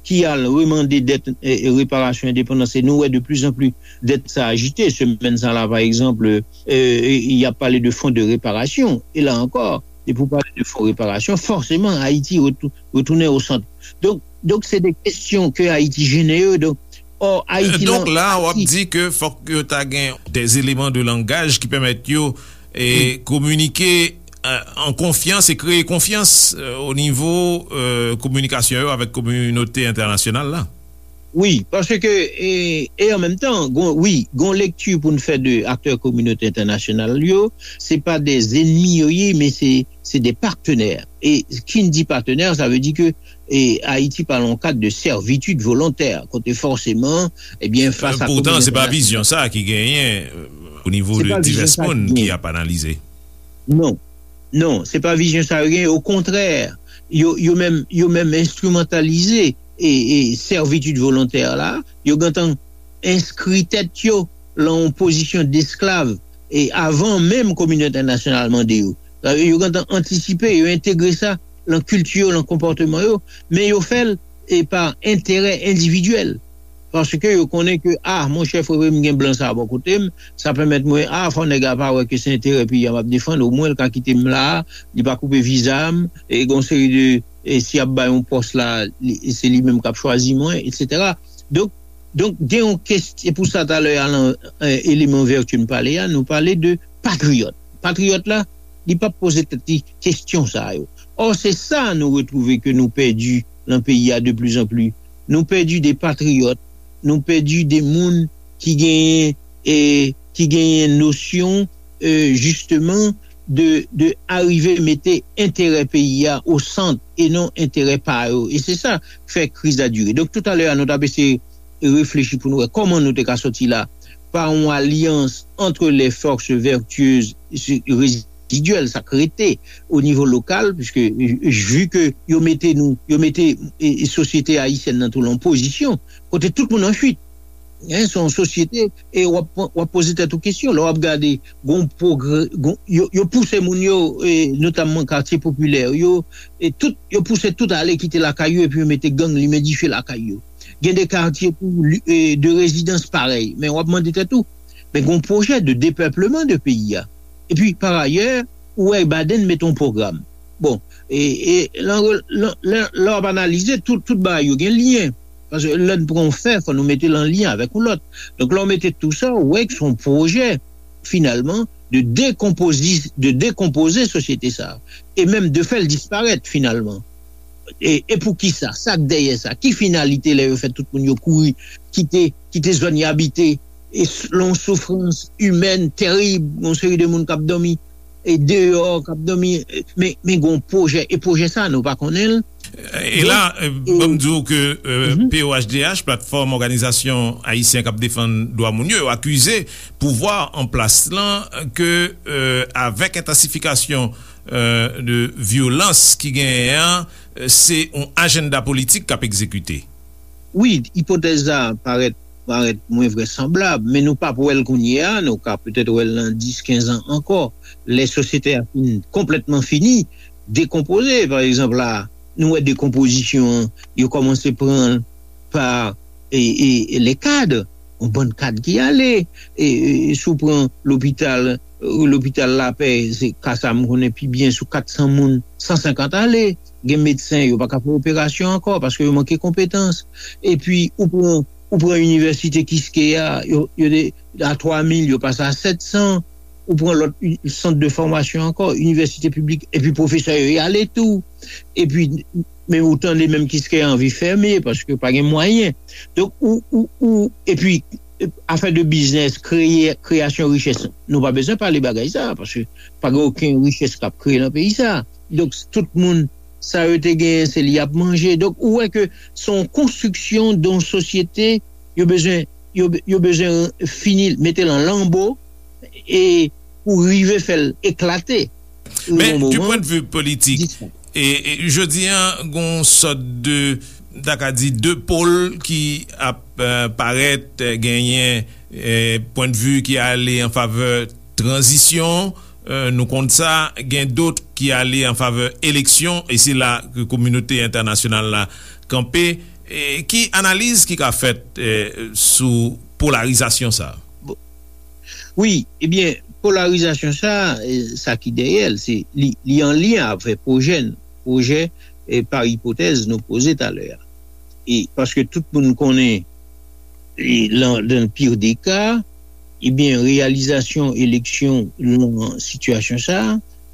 ki al remande dèt, e, e, reparasyon endepandans, e nou wè de plus en plus dèt sa ajite. Semèn sa la, pa egzanp, e, e, y ap pale de fon de reparasyon. E la ankò, depi w pale de fon reparasyon, fòseman, Ayiti retou- retounen o sant. Donk, donk se de kesyon ke Ayiti jennen yo. Donk, ò, Ayiti Donk la, w ap di ke fòk yo ta gen des éléments de langage ki pèmèt yo e kominike, e, an konfyans e kreye konfyans, e, o nivo, e, kominikasyon yo avèk kominote entènasyonal la. Wi, paske, e, e an menm tan, gon, wi, gon lekti pou n fè de aktè kominote entènasyonal yo, se pa de zenmi yo ye, men se, se de patenè. E ki n di patenè, sa vle di ke, e, Ayiti pa nan yon kad de sèvitid volontè, kote fòseman, ebyen, fas a Poutan, se pa kominote vizyon sa ki genyen, e, o nivo de divès moun ki ap analize. Non. Non, se pa vizyon sa yo genyen. Okontrè, yo, yo menm, yo menm enstrimantalize e, e sèvitid volontè la. Yo gentan enskri tèt yo lan yon pozisyon desklav e avan menm kominote entènasyonal mande yo. Sa vle di yo gentan antisipe, yo entegre sa lan kilti yo, lan konpòteman yo, men yo fè l e pa enterè endividyèl. Paske yo konnen ke, a, monchè, frè m, gen blan sa a bò kote m, sa pèmèt mwen, a, fò nèg la pa wè ke se enterè peyi a m ap defann, omwen l ka kite m la a, li pa koupe viza m, e gen yon seri de, e si y ap bay yon pòs la, li, se li menm k ap chwazi mwen, etsetera. Donk, donk, gen yon kestyon, e pou sa talè a lan, e, eleman vètye m pale a, nou pale de patriyòt. Patriyòt la, li p ap poze tèt li kestyon sa yo. Ò, se sa nou retwouve ke nou pèdi lan peyi a de plus en plus. Nou pèdi de patriyòt, nou pèdi de moun ki genyen, e, ki genyen nosyon, e, jisteman, de, de arive mete enterè peyi a o sant e non enterè pa yo. E se sa k fè kriz la dire. Donk, toutalè a, nou t ap eseye reflechi pou nou wè kòman nou te ka sòti la pa yon alyans entre les forces vertueuses rezidyèl, sa k rete o nivo lokal, piske, e, vi ke yo mete nou, yo mete, e, e, sosyete ayisyèn nan tou lan pozisyon kote tout moun an fuit. Hein, se yon sosyete, e w ap, w ap poze tèt ou kesyon. Lè w ap gade, gon pwogrè, gon, yo, yo pouse moun yo, e, notamman katye popilè yo, e tout, yo pouse tout ale kite lakay yo, epi yo mete gang, limen dife lakay yo. Gen de katye tou, li- e, de rezidans parèy. Men w ap mande tèt ou, men gon pwojè de depèpleman de peyi a. Epi, parayè, ou wè Biden mete yon pwogram. Bon, e, e, lan re- lan- lè lè w ap analize, tout, tout bagay yo gen lyen. Paske lè n pran yon fè, fò nou mete l an lyen avèk yon lòt. Donk, lè w mete tou sa, ou wè ke se yon pwojè, finalman, de dekonpozi- de dekonpoze sosyete sa a, e menm de fè l disparèt, finalman. E, e poukisa? Sa k dèyè sa? Ki finalite lè yo fè tout moun yo kouri, kite, kite zòn y abite, e s- lan yon soufrans imèn terib, yon seri de moun k ap dòmi e deyò, k ap dòmi, e, men, men gon pwojè, e pwojè sa, nou pa konnen l. E la, e, ban m di w ke, e, P O H D H, Platfòm Òganizasyon Ayisyen k ap Defann Dwa Moun yo, yo akize pouvwa an plas lan ke, e, avèk entansifikasyon, e, de vyolans ki genyen an, e, se yon ajanda politik k ap egzekite. Wi, ipotèz la parèt, parèt mwen vrèsanblab, men nou p ap wè l kounye a, nou ka petèt wè l nan dis, kenz an ankò, lè sosyete a fin konplètman fini, dekonpoze. Pa egzanp, la, nou wè dekonpozisyon an, yo kòmanse pran l pa, e, e, e, les cadres, yon bann kad ki ale, e, e, si w pran lopital, e, lopital Lapè, se ka sa m konnen pi byen, sou kat san moun, san senkant ale, gen medsen, yo pa ka fè operasyon ankò paske yo manke konpetans. Epi, ou pran, ou pran inivèsite Kiskeya, yo, yo te a twa mil, yo pase a sèt san. Ou pran lòt uni- sant de fòmasyon ankò, inivèsite piblik, epi pwofesè yo y ale tou. Epi, men ou tande menm Kiskeya anvi fèmen paske pa gen mwayen. Donk, ou, ou, ou, epi, afè de biznis, kreye, kreyasyon richès, nou pa bezwen pale bagay sa, paske pa gen okenn richès k ap kreye nan peyi sa. Donk, tout moun, sa yo te genyen, se li y ap manje. Donk, ou wè ke se yon konstriksyon de yon sosyete, yo bezwen, yo, yo bezwen fini, mete l an lanbo, e pou rive fè l eklate. Men, du point de vue politik, e, e, jodi an, gon sòt de, ta ka di, de pôle ki ap euh, parèt, euh, genyen euh, point de vue ki ale an favè tranzisyon, euh, nou konn sa, gen dòt ki ale an favè eleksyon, e se la ke kominote entènasyonal la kanpe. E ki analiz ki ka fèt euh, sou polarizasyon sa? Wi, ebyen, polarizasyon sa, eh, sa ki dèyè l, se li, li an lyen avè pwojè n, pwojè, eh, pa ipotèz nou poze talè a. E paske tout moun konnen, e, lan, dan pire de ka, ebyen, reyalizasyon eleksyon lan sitiyasyon sa,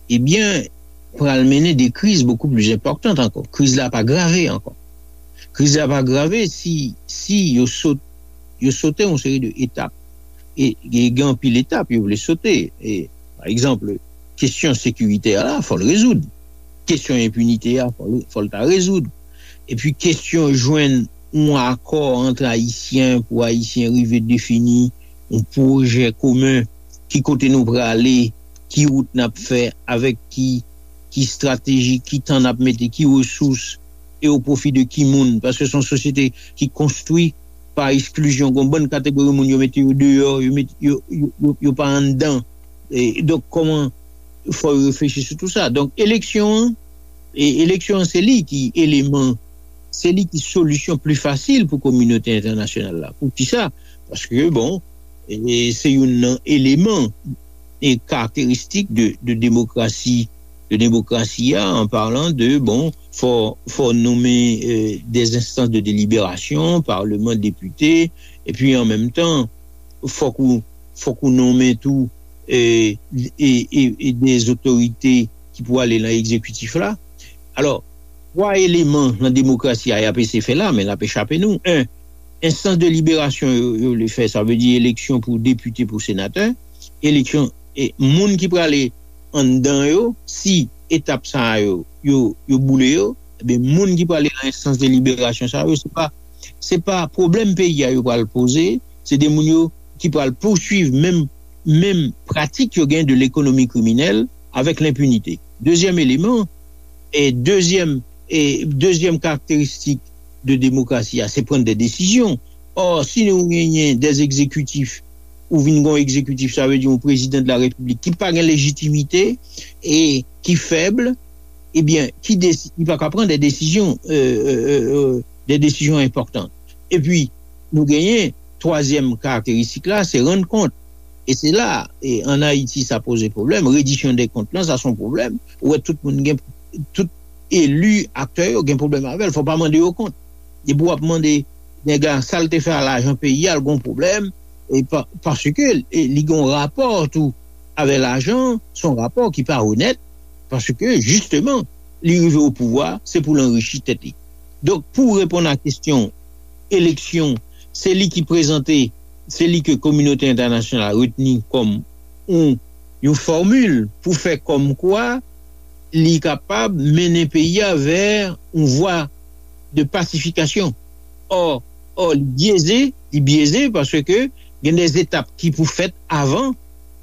ebyen, pral mennen de kriz bokou pli enpòtan ankò. Kriz la pa grave ankò. Kriz la pa grave si, si yo sot, yo sote yon seri de etap. E, e gen anpil etap yo vle sote. E, pa egzanp, kesyon sekiritè la, fò l rezoud. Kesyon enpinite a, fò l, fò l ta rezoud. Epi kesyon jwenn yon akò ant Ayisyen pou Ayisyen rive defini yon pwojè komen, ki kote nou prale, ki wout n ap fè, avèk ki, ki estrateji, ki tan n ap mete, ki resous, e o pwofi de ki moun. Paske se yon sosyete ki konstwi pa eksklizyon. Gon bann kategori moun yo mete yo deyò, yo, met, yo, yo, yo, yo pa anndan. E, donk, kòman fò yo reflechi sou tou sa. Donk, eleksyon an, e, eleksyon an se li ki eleman, se li ki solisyon pli fasil pou kominote entènasyonal la. Poukisa? Paske, bon, e, se youn nan eleman e karakteristik de, de demokrasi, de demokrasi a, an palan de, bon, fò, fò nonmen e, des instances de délibération, paleman, depite, epi an menm tan, fòk ou, fòk ou nonmen tou e, e, e, e des otorite ki pou ale lan egzekitif la. Alò, twa eleman lan demokrasi a y ap eseye fè la, men l ap echape nou. En, enstans de liberasyon yo, yo vle fè, sa vle di eleksyon pou depite, pou senatè, eleksyon e moun ki prale anndan yo, si etap sa yo, yo, yo boule yo, ebyen, moun ki prale lan enstans de liberasyon sa yo, se pa, se pa pwoblèm peyi a yo pral poze, se de moun yo ki pral pouswiv menm, menm pratik yo gen de lekonomi kriminèl avèk lenpinite. Dezyèm eleman, e dezyèm, e dezyèm karakteristik de demokrasi a, se pran de desizyon. Ò, si nou genyen de egzekitif, ou vin gon egzekitif, sa vle di yon prezidan de la repiblik ki pa gen lejitimite e ki fèb, ebyen, ki desi, li pa ka pran de desizyon, euh, euh, euh, euh, de desizyon enpòtan. Epi, nou genyen twazyèm karakteristik la, se rann kont. E se la, e an Ayiti, sa poze pwoblèm. Redisyon de kont lan, sa se yon pwoblèm. Ou wè tout moun gen, tout eli, aktè yo gen pwoblèm avè l. Fò pa mande yo kont. Depi w ap mande nèg la sa l te fè a lajan peyi a, l gon pwoblèm. E pa, paske e, li gon rapò tou avè lajan, se yon rapò ki pa onèt, paske jisteman, li rive o pouvwa, se pou l anrichi tèt li. Donk, pou reponn a kesyon eleksyon, se li ki prezante, se li ke kominote entènasyonal la retni kòm yon, yon fòmil pou fè kòmkwa li kapab mennen peyi a vè yon vwa de pasifikasyon. Ò, ò, li byeze, li byeze paske gen de etap ki pou fèt avan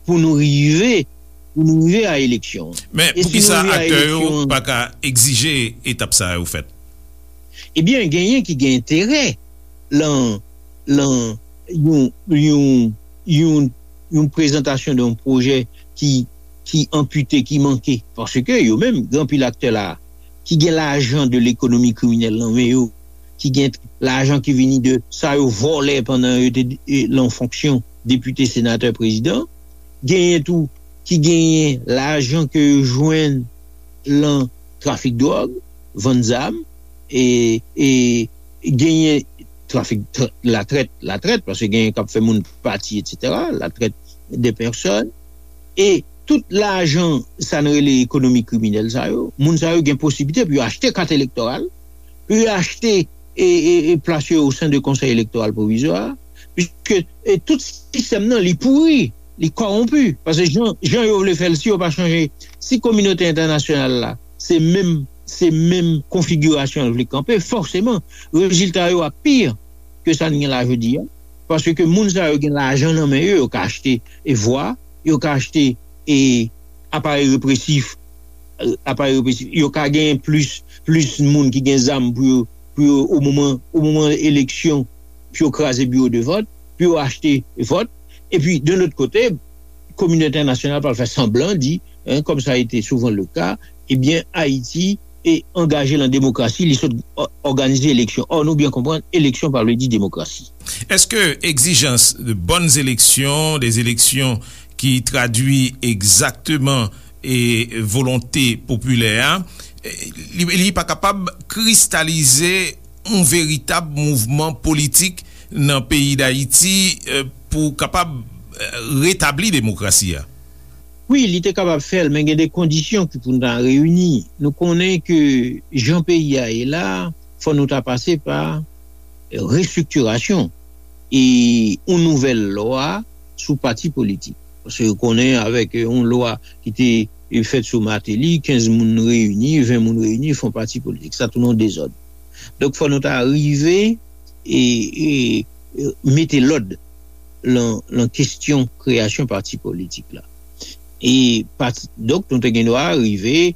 pou nou rive, pou nou rive a eleksyon. Men, poukisa aktè yo pa ka egzije etap sa yo fèt? Ebyen, genyen ki gen enterè lan, lan yon, yon, yon, yon prezantasyon de yon pwojè ki, ki anpite, ki manke. Paske yo menm, gen anpil aktè la, ki gen lajan de lekonomi kriminèl nan men yo, ki gen lajan ki vini de sa yo vòlè pandan yo te e, lan fonksyon depite, senatè, prezidan. Genyen tou ki genyen lajan ke yo jwenn lan trafik dwòg, vann zam, e, e genyen trafik tr- latrèt, latrèt, paske genyen k ap fè moun pati, etsetera, la traite des personnes. E tout lajan, sa n rele ekonomi kriminèl sa yo, moun sa yo gen posiblite pou yo achte kat elektoral, pou yo achte e, e, e plas yo o sen de Konsèy Elektoral Pwovizwa, piske e tout sistèm nan, li pouri, li kòwonpi. Paske jan, jan yo vle fè l, si yo pa chanje, si kominote entènasyonal la, se menm, se menm konfigirasyon l vle kanpe, fòseman, rezilta yo ap pi ke sa n gen la jodi a. Paske moun sa yo gen lajan nan men yo, yo ka achte e vwa, yo ka achte e aparèy represif, aparèy represif, yo ka genyen plis, plis moun ki gen zam pou yo, pou yo, o moman, o moman eleksyon, pou yo kraze biwo de vòt, pou yo achte vòt. Epi, de lòt kote, kominote entènasyonal pral fè sanblan di, hein, comme ça a été souvent le cas, ebyen, Ayiti e angaje lan demokrasi, li sot òganize eleksyon. Ò, nou byen konprann, eleksyon pa vle di demokrasi. Est-ce que exigence de bonnes élections, des élections qui traduit exactement et volonté populaire, li, li pa kapab kristalize yon veritab mouvman politik nan peyi Dayiti, euh, pou kapab, euh, retabli demokrasi a? Wi, li te kapab fè l, men gen de kondisyon ki pou n ta reyini. Nou konnen ke jan peyi a ye la, fò nou ta pase pa restriktirasyon e yon nouvèl lwa sou pati politik. Paske ou konnen avèk yon lwa ki te fèt sou Martelly, kenz moun reyini, ven moun reyini, fè yon pati politik. Sa tounen yon dezòd. Donk, fò nou ta rive e, e, e mete lòd lan, lan kesyon kreyasyon pati politik la. E pati, donk, nou te gen dwa rive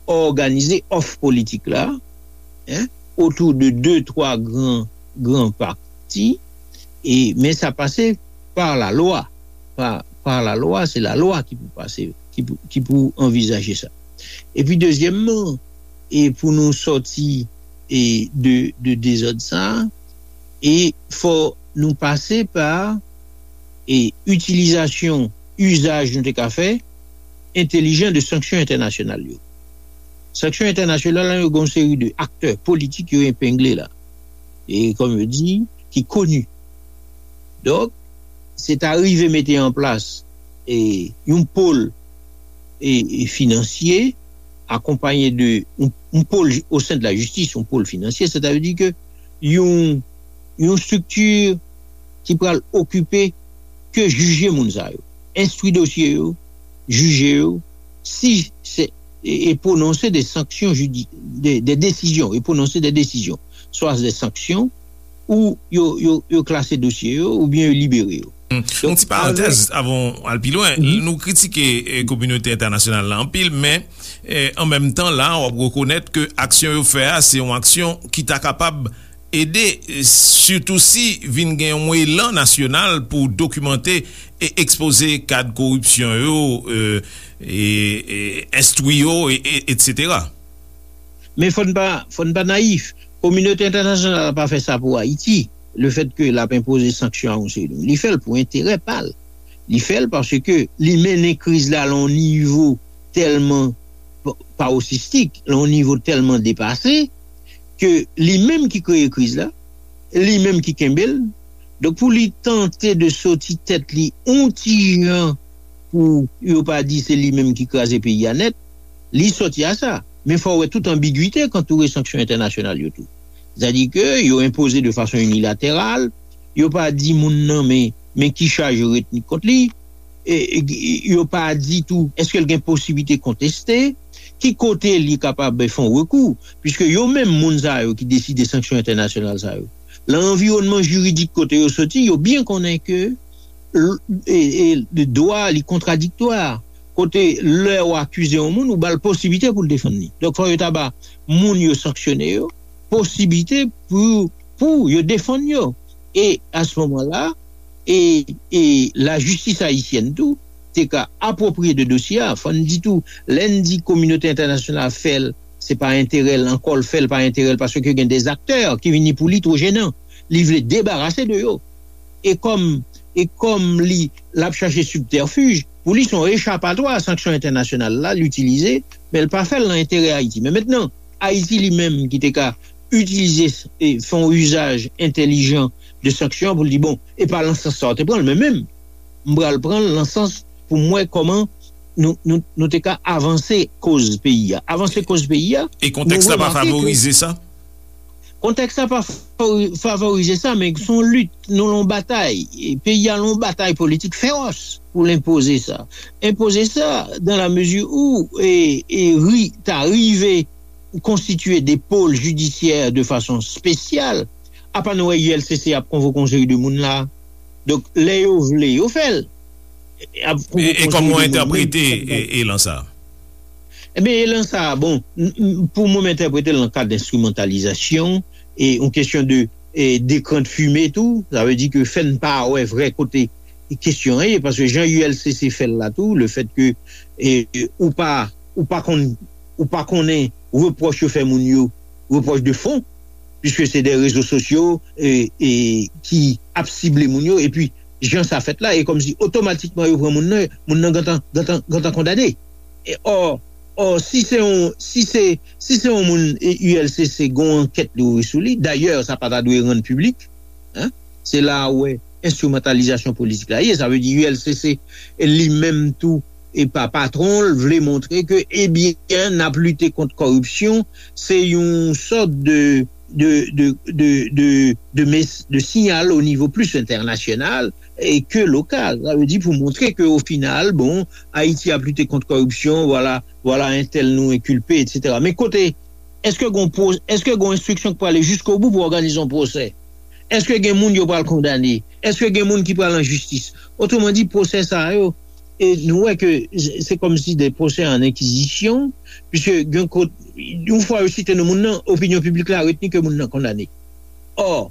òganize òf politik la, hein, otou de de, twa gran, gran pati, e, men sa pase pa lalwa. Pa, pa lalwa, se lalwa ki pou pase, ki pou, ki pou anvizaje sa. Epi dezyèmman, e pou nou sòti e de, de dezòd sa, e fò nou pase pa e itilizasyon, izaj nou te ka fè, entelijan de sanksyon entènasyonal yo. Sanksyon entènasyonal la, yo gen yon seri de aktè politik yo epengle la. E kòm yo di, ki koni. Donk, se ta rive mete an plas e yon pòl e, e finansye, akonpanye de yon, yon pòl o sen de la jistis, yon pòl finansye, sètadi ke yon, yon estrikti ki pral okipe ke jije moun sa yo, enstwi dosye yo, jije yo, si se, e, e pwononse de sanksyon jidi, de, de desizyon, e pwononse de desizyon, swa de sanksyon, ou yo, yo, yo klase dosye yo, oubyen yo libere yo. Yon ti parantèz avan w al pi lwen. Nou kritike, eh, kominote entènasyonal la anpil, men, eh, an menm tan la, w ap rekonèt ke aksyon yo fè a, se yon aksyon ki ta kapab ede, eh, sitou si vin gen yon elan nasyonal pou dokimante e ekspoze kad koripsyon yo, eh, e, e enstwi yo, e, e, etsetera. Men fò n pa, fò n pa nayif. Kominote entènasyonal la pa fè sa pou Ayiti. Lefètke l ap enpoze sanksyon a yon seri de moun, li fè l pou enterè pa l. Li fè l paske li mennen kriz la lan yon nivo tèlman pa-, paroxistik, lan yon nivo tèlman depase, ke li menm ki kreye kriz la, li menm ki kenbe l. Donk, pou li tante de soti tèt li yon ti jan pou yo pa di se li menm ki kraze peyi a nèt, li sòti a sa. Men fò w wè tout anbigite k antoure sanksyon entènasyonal yo tou. Sètadi ke yo enpoze de fason inilateral, yo pa di moun nan men, men ki chaj yo retni kont li, e, e, yo pa di tou èske l gen posiblite konteste, ki kote li kapab fè yon rekou, piske yo menm moun sa yo ki deside sanksyon entènasyonal sa yo, lan anviwònman jiridik kote yo soti, yo byen konnen ke l-, e, e, dwa li kontradiktwa. Kote lè w akize yon moun, ou ba l posiblite pou l defann li. Donk, fò yo ta ba moun yo sanksyone yo posiblite pou, pou yo defann yo. E a se moman la, e, e lajistis ayisyèn tou te ka apwopriye de dosye a. Fò n di tou, lè n di kominote entènasyonal fè l, se pa enterè l ankò l fè l, pa enterè l, paske gen de aktè ki vini pou li two jenan. Li vle debarase de yo. E kòm, e kòm li, l ap chache sibtèfij, pou li se yon echapatwa a sanksyon entènasyonal la, l itilize, men l pa fè l nan enterè Ayiti. Men mentnan, Ayiti li menm ki te ka itilize, e, fè yon izaj entèlijan de sanksyon pou l di, bon, e pa lan sans sa w te pran l, men menm, m pral pran l lan sans pou m wè kòman nou, nou, nou te ka avanse koz peyi a. Avanse koz peyi a. E kontèks la pa favorize sa? Kontèks la pa favori-, favorize sa, men se yon lit, nou lan batay. E peyi a lan batay politik fewòs pou l enpoze sa. Enpoze sa, dan la mezi ou, e, e ri, ta rive konstitye de pòl jidisyè de fason espesyal, apa nou wè U L C C ap konvoke yon seri de moun la. Donk, lè yo vle, yo fè l. E kòman w entèprete elan sa a? Ebyen, elan sa a, bon, pou mwen, m entèprete l nan kad enstrimantalizasyon, e yon kesyon de e, dekran de fime tou, sa vle di ke fè n pa wè vrè kote kesyon an ye, paske jan U L C C fè l la tou, le fèt ke e, ou pa ou pa konn ou pa konnen repwòch yo fè moun yo, repwòch de fon, piske se de rezo sosyo e, e, ki ap sible moun yo, epi jan sa fèt la, e kòmsi otomatikman yo pran moun nan, moun nan gentan gentan gentan kondane. E, ò, ò, si se yon si se si se yon moun e, U L C C gon ankèt li ouvri sou li, dayè sa pa ta dwe rann piblik, en, se la a ou wè enstrimantalizasyon politik la ye. Sa vle di U L C C li menm tou e pa patwon l vle montre ke ebyen n ap lite kont kòripsyon, se yon sòt de de de de de de, mes- de siyal o nivo plis entènasyonal e ke lokal. Sa vle di pou montre ke o final, bon, Ayiti ap lite kont kòripsyon, vwala, vwala entèl nou enkilpe, etsetera. Men kote, èske gon pwo- èske gon enstriksyon k prale jiskobou pou òganize yon pwosè? Èske gen moun yo pral kondane? Èske gen moun ki pral an jistis? Otreman di, pwosè sa yo, e nou wè ke se kòmsi de pwosè an enkizisyon, piske gen kote, yon fwa yo site non moun nan, opinyon piblik la retni ke moun nan kondane. Ò,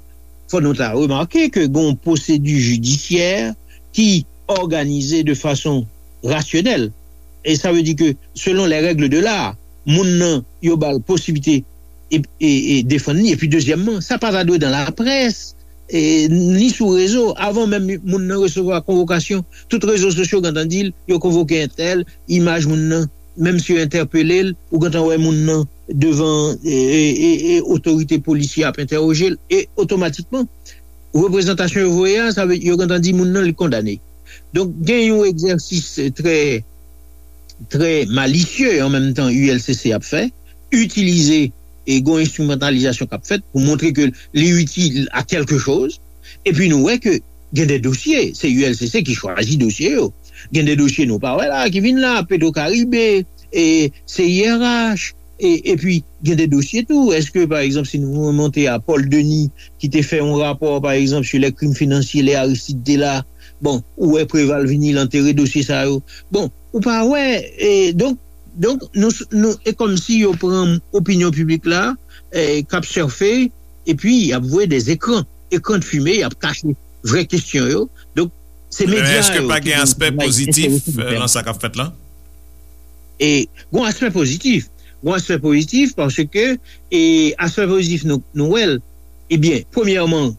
fò nou ta remake ke gen yon pwosedi jidisyè ki òganize de fason rasyonèl. E sa vle di ke, selon les règles de l'art, moun nan, yo ba l posiblite e, e, e defann li. Epi, dezyèmman, sa pa ta dwe dan laprès, e, ni sou rezo. Avan menm moun nan resevwa konvokasyon, tout rezo sosyo gentan di l, yo konvoke entèl, imaj moun nan, menm si yo entèpele l, ou gentan wè moun nan devan e, e, e, e otorite polisye ap entèwoje l, e otomatikman, reprezantasyon yo voye a, sa vle yo gentan di moun nan li kondane. Donk, gen yon egzèsis trè, trè malisye an menm tan U L C C ap fè, itilize e gon enstrimantalizasyon k ap fèt pou montre ke li itil a kèlke choz. Epi nou wè ke gen de dosye, se U L C C ki chwazi dosye yo. Gen de dosye nou pa wè la, ki vin la, Petro Caribe, e C I R H, e, epi gen de dosye tou. Èske, pa egzanp, si nou remonte a Paul Denis, ki te fè yon rapò, pa egzanp, sur les crimes financiers, lè Aristide te la, bon, ou wè Preval vini, l antere dosye sa yo. Bon, ou pa wè, e, donk, donk, nou, nou, e kòmsi yo pran opinyon piblik la, e, k ap sèfe, epi y ap voye de ekran, ekran de fime, y ap kache vrè kesyon yo. Donk, se medya yo ki gen yon travay enterese pou fè. Men èske pa gen aspè pozitif, e, nan sa k ap fèt la? E, gon aspè pozitif. Gon aspè pozitif paske, e, aspè pozitif nou, nou wè l. Ebyen, premyèman,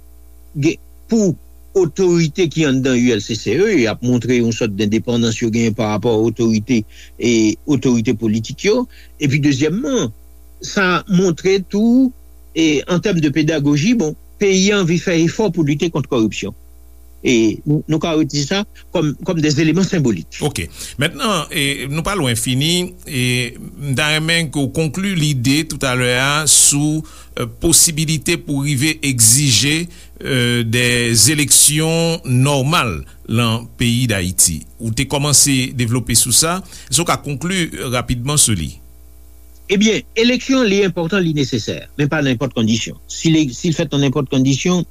gen, pou otorite ki anndan U L C C yo, y ap montre yon sòt dendepandans yo genyen pa rapò a otorite, e, otorite politik yo. Epi, dezyèmman, sa montre tou, e, an tèm de pedagoji, bon, peyi a anvi fè efò pou lite kont kòripsyon. E nou, nou ka retire sa kòm, kòm de eleman senbolik. Ok. Mentnan, e, nou pa lwen fini. E m ta renmen ke w konkli lide toutalè a sou, e, posibilite pou rive egzije, e, de eleksyon nòmal lan peyi Dayiti. Ou te kòmanse devlope sou sa. Èske w ka konkli rapidman sou li? Ebyen, eleksyon, li enpòtan, li nesesè, men pa nan nenpòt kondisyon. Si li, si l fèt nan nenpòt kondisyon,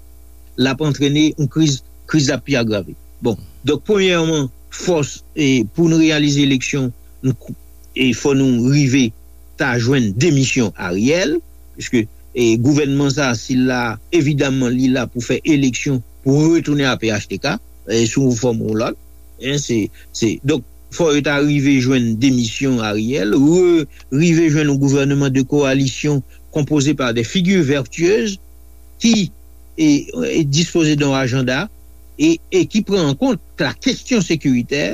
l ap antrene yon kriz, kriz la pi agrave. Bon, donk, premyèman, fòs, e, pou n reyalize eleksyon, n kou- e fò nou rive ta jwenn demisyon Ariel, piske, e, gouvènman sa, si l la, evidaman, li la pou fè eleksyon, pou retounen a P H T K, e, sou yon fòm ou lòt. En, se, se, donk, fò yo ta rive jwenn demisyon Ariel, re, rive jwenn yon gouvènman de kowalisyon konpoze pa de figi vètyez ki, e, e dispoze de yon ajanda e, e ki pran an kont la kesyon sekiritè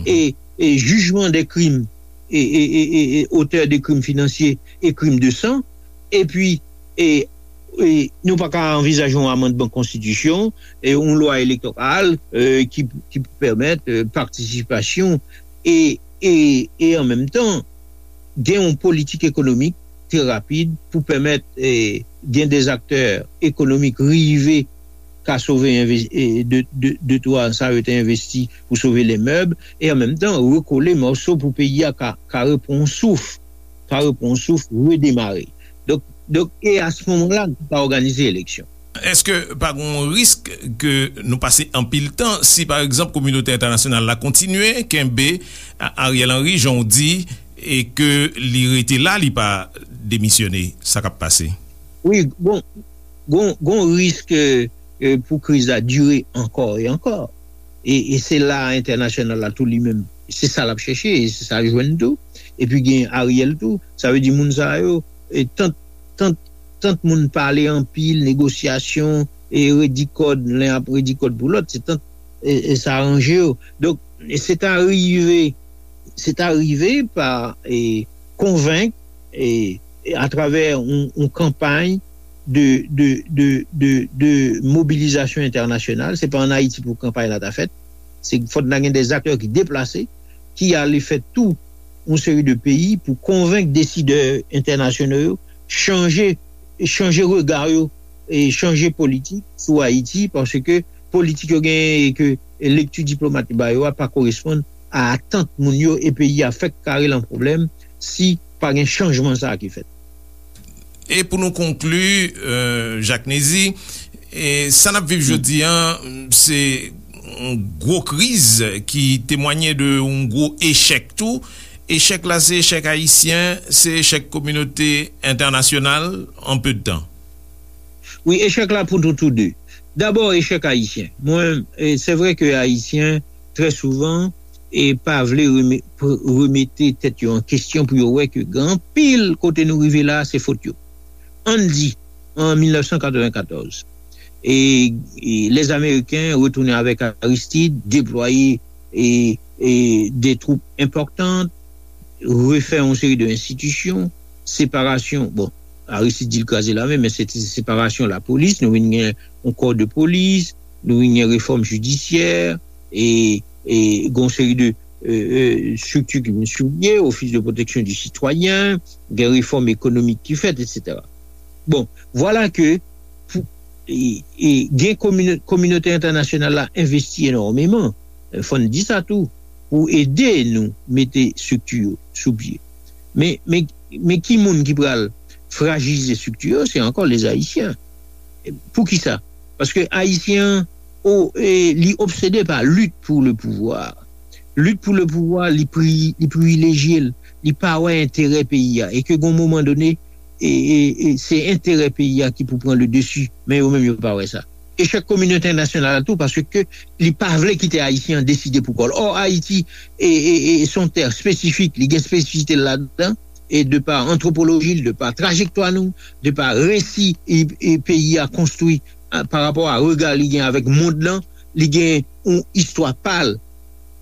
e, e jijman de krim e, e, e, e, e otè de krim finansye e krim de san, epi, e, e nou pa ka anvizaje yon amandman konstitisyon, e yon lwa elektoral, e, ki, ki pou pèmèt, e, patisipasyon e, e, e an menm tan, gen yon politik ekonomik trè rapid pou pèmèt, e, gen de aktè ekonomik rive ka sove enve- e, de, de, de twa sa yo te envesti pou sove lè mèb, e an menm tan rekole mòso pou peyi a ka, ka repran souf, ka repran souf, redemare. Donk, donk, e a se moman la, nou ka òganize eleksyon. Èske pa gen yon risk ke nou pase anpil tan si, pa egzanp, kominote entènasyonal la kontinye kenbe A- Ariel Henry, jan w di, e ke li rete la, li pa demisyone? Sa k ap pase? Wi, gon, gon, gon risk eh, eh, pou kriz la dire ankò e ankò. E, e se la entènasyonal la tou li menm. Se sa l ap chèche, e se sa l jwenn tou. Epi gen Ariel tou. Sa vle di moun sa yo, e tant, tant, tant moun pale anpil, negosyasyon, e redi kòd, len ap redi kòd pou lòt, se tant, e, e sa ranje yo. Donk, e se ta rive, se ta rive pa, e, konvenk, e, e atravè yon, yon kanpay de, de, de, de, de mobilizasyon entènasyonal. Se pa ann Ayiti pou kanpay la ta fèt. Se fòk nan gen de aktè ki deplase, ki ale fè tou yon seri de peyi pou konvenk desidè entènasyonal yo chanje, chanje rega yo e chanje politik sou Ayiti, paske politik yo genyen e ke lekti diplomat yo ba yo a pa koresponn a atant moun yo, e peyi a fèk kare lan pwoblèm si pa gen chanjman sa a ki fèt. E pou nou konkli, euh, Jacques Nézy, e sa n ap viv jodi an, se yon gwo kriz ki temwanye de yon gwo echèk tou. Echèk la, se echèk ayisyen, se echèk kominote entènasyonal an pe de tan. Wi, echèk la pou nou tou de. Dabò, echèk ayisyen. Mwen, e, se vre ke ayisyen, trè souvan, e pa vle reme- pr- remete tèt yo an kesyon pou yo wè ke gen anpil kote nou rive la, se fot yo. Ann di, an mil nèf san katreven katòz, e, e lèzameriken retounen avèk Aristide, deplwaye e, e de twoup enpòtan, refè yon seri de enstitisyon, separasyon, bon, Aristide di l kraze lame, men se te separasyon lapolis, nou vin gen yon kò de polis, nou vin gen refòm jidisyè, e, e gen yon seri de e, e, estrikti ki vin sou pye, Office de Protection du Citoyen, gen refòm ekonomik ki fèt, etsetera. Bon, vwala ke pou, e, e, gen komino- kominote entènasyonal la envesti enòmeman, e, fò n di sa tou, pou ede nou mete estrikti yo sou pye. Men, men, men ki moun ki pral frajilize estrikti yo? Se ankò lèzayisyen. Poukisa? Paske ayisyen an, o, e, li obsede pa lit pou le pouvwa. Lit pou le pouvwa, li pri- li privilejye l, li pa wè enterè peyi a. E ke gon moman done, e, e, e se enterè peyi a ki pou pran le desi, men yo menm yo pa wè sa. Echèk kominote entènasyonal la tou, paske li pa vle kite ayisyen an deside pou kò l. Ò, Ayiti, e, e, e, se yon tè espesifik, li gen espesifite l ladan, e de pa antwopoloji l, de pa trajektwa nou, de pa resi e, e peyi a konstwi, a, pa rapò a rega li gen avèk mond lan, li gen yon istwa pa l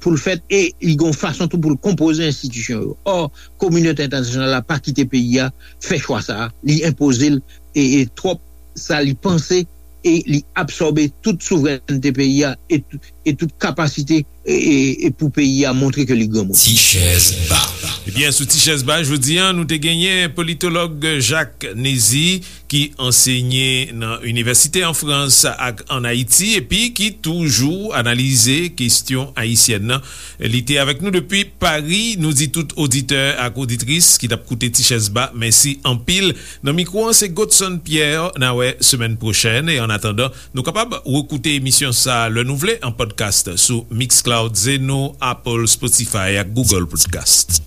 pou l fèt, e li gen yon fason tou pou l konpoze enstitisyon yo. Ò, kominote entènasyonal la pa kite peyi a fè chwa sa a, li enpoze l, e, e twòp sa li panse, e li absòbe tout souvrènte peyi a, e, tout- e tout kapasite, e, e, e pou peyi a montre ke li granmoun. Ti chèz ba. Ebyen, sou Ti chèz ba, jodi a, nou te genyen politològ Jacques Nézy, ki ansenye nan inivèsite an Frans ak an Ayiti, epi ki toujou analize kesyon ayisyèn nan. Li te avèk nou depi Pari. Nou di tout oditè ak oditris ki t ap koute Ti chèz ba, mèsi anpil. Nan mikwo an, se Godson Pierre. N a wè semèn pwochèn. E an atandan, nou kapab rekoute emisyon sa a lè nou vle an podcast sou Mixcloud, Zeno, Apple, Spotify ak Google Podcast.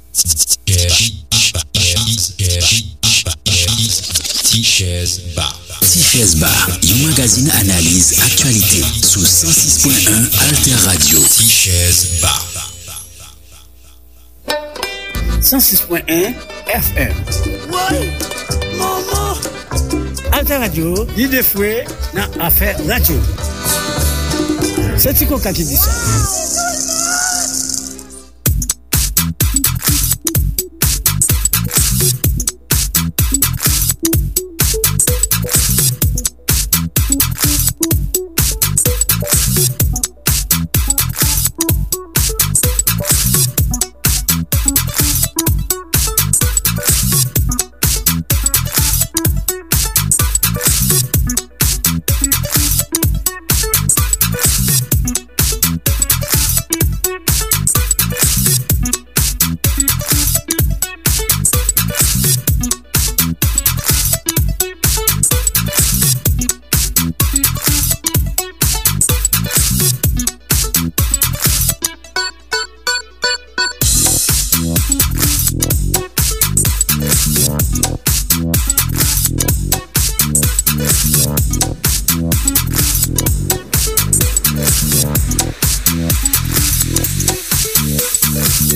Ti chèz ba. Ti chèz ba, yon magazin analiz aktyalite sou san sis pwen en Alter Radio. Ti chèz ba. san sis pwen en F M. Woy! Manman! Alter Radio, lide fre nan afè radyo. Se Ti Koka ki di sa.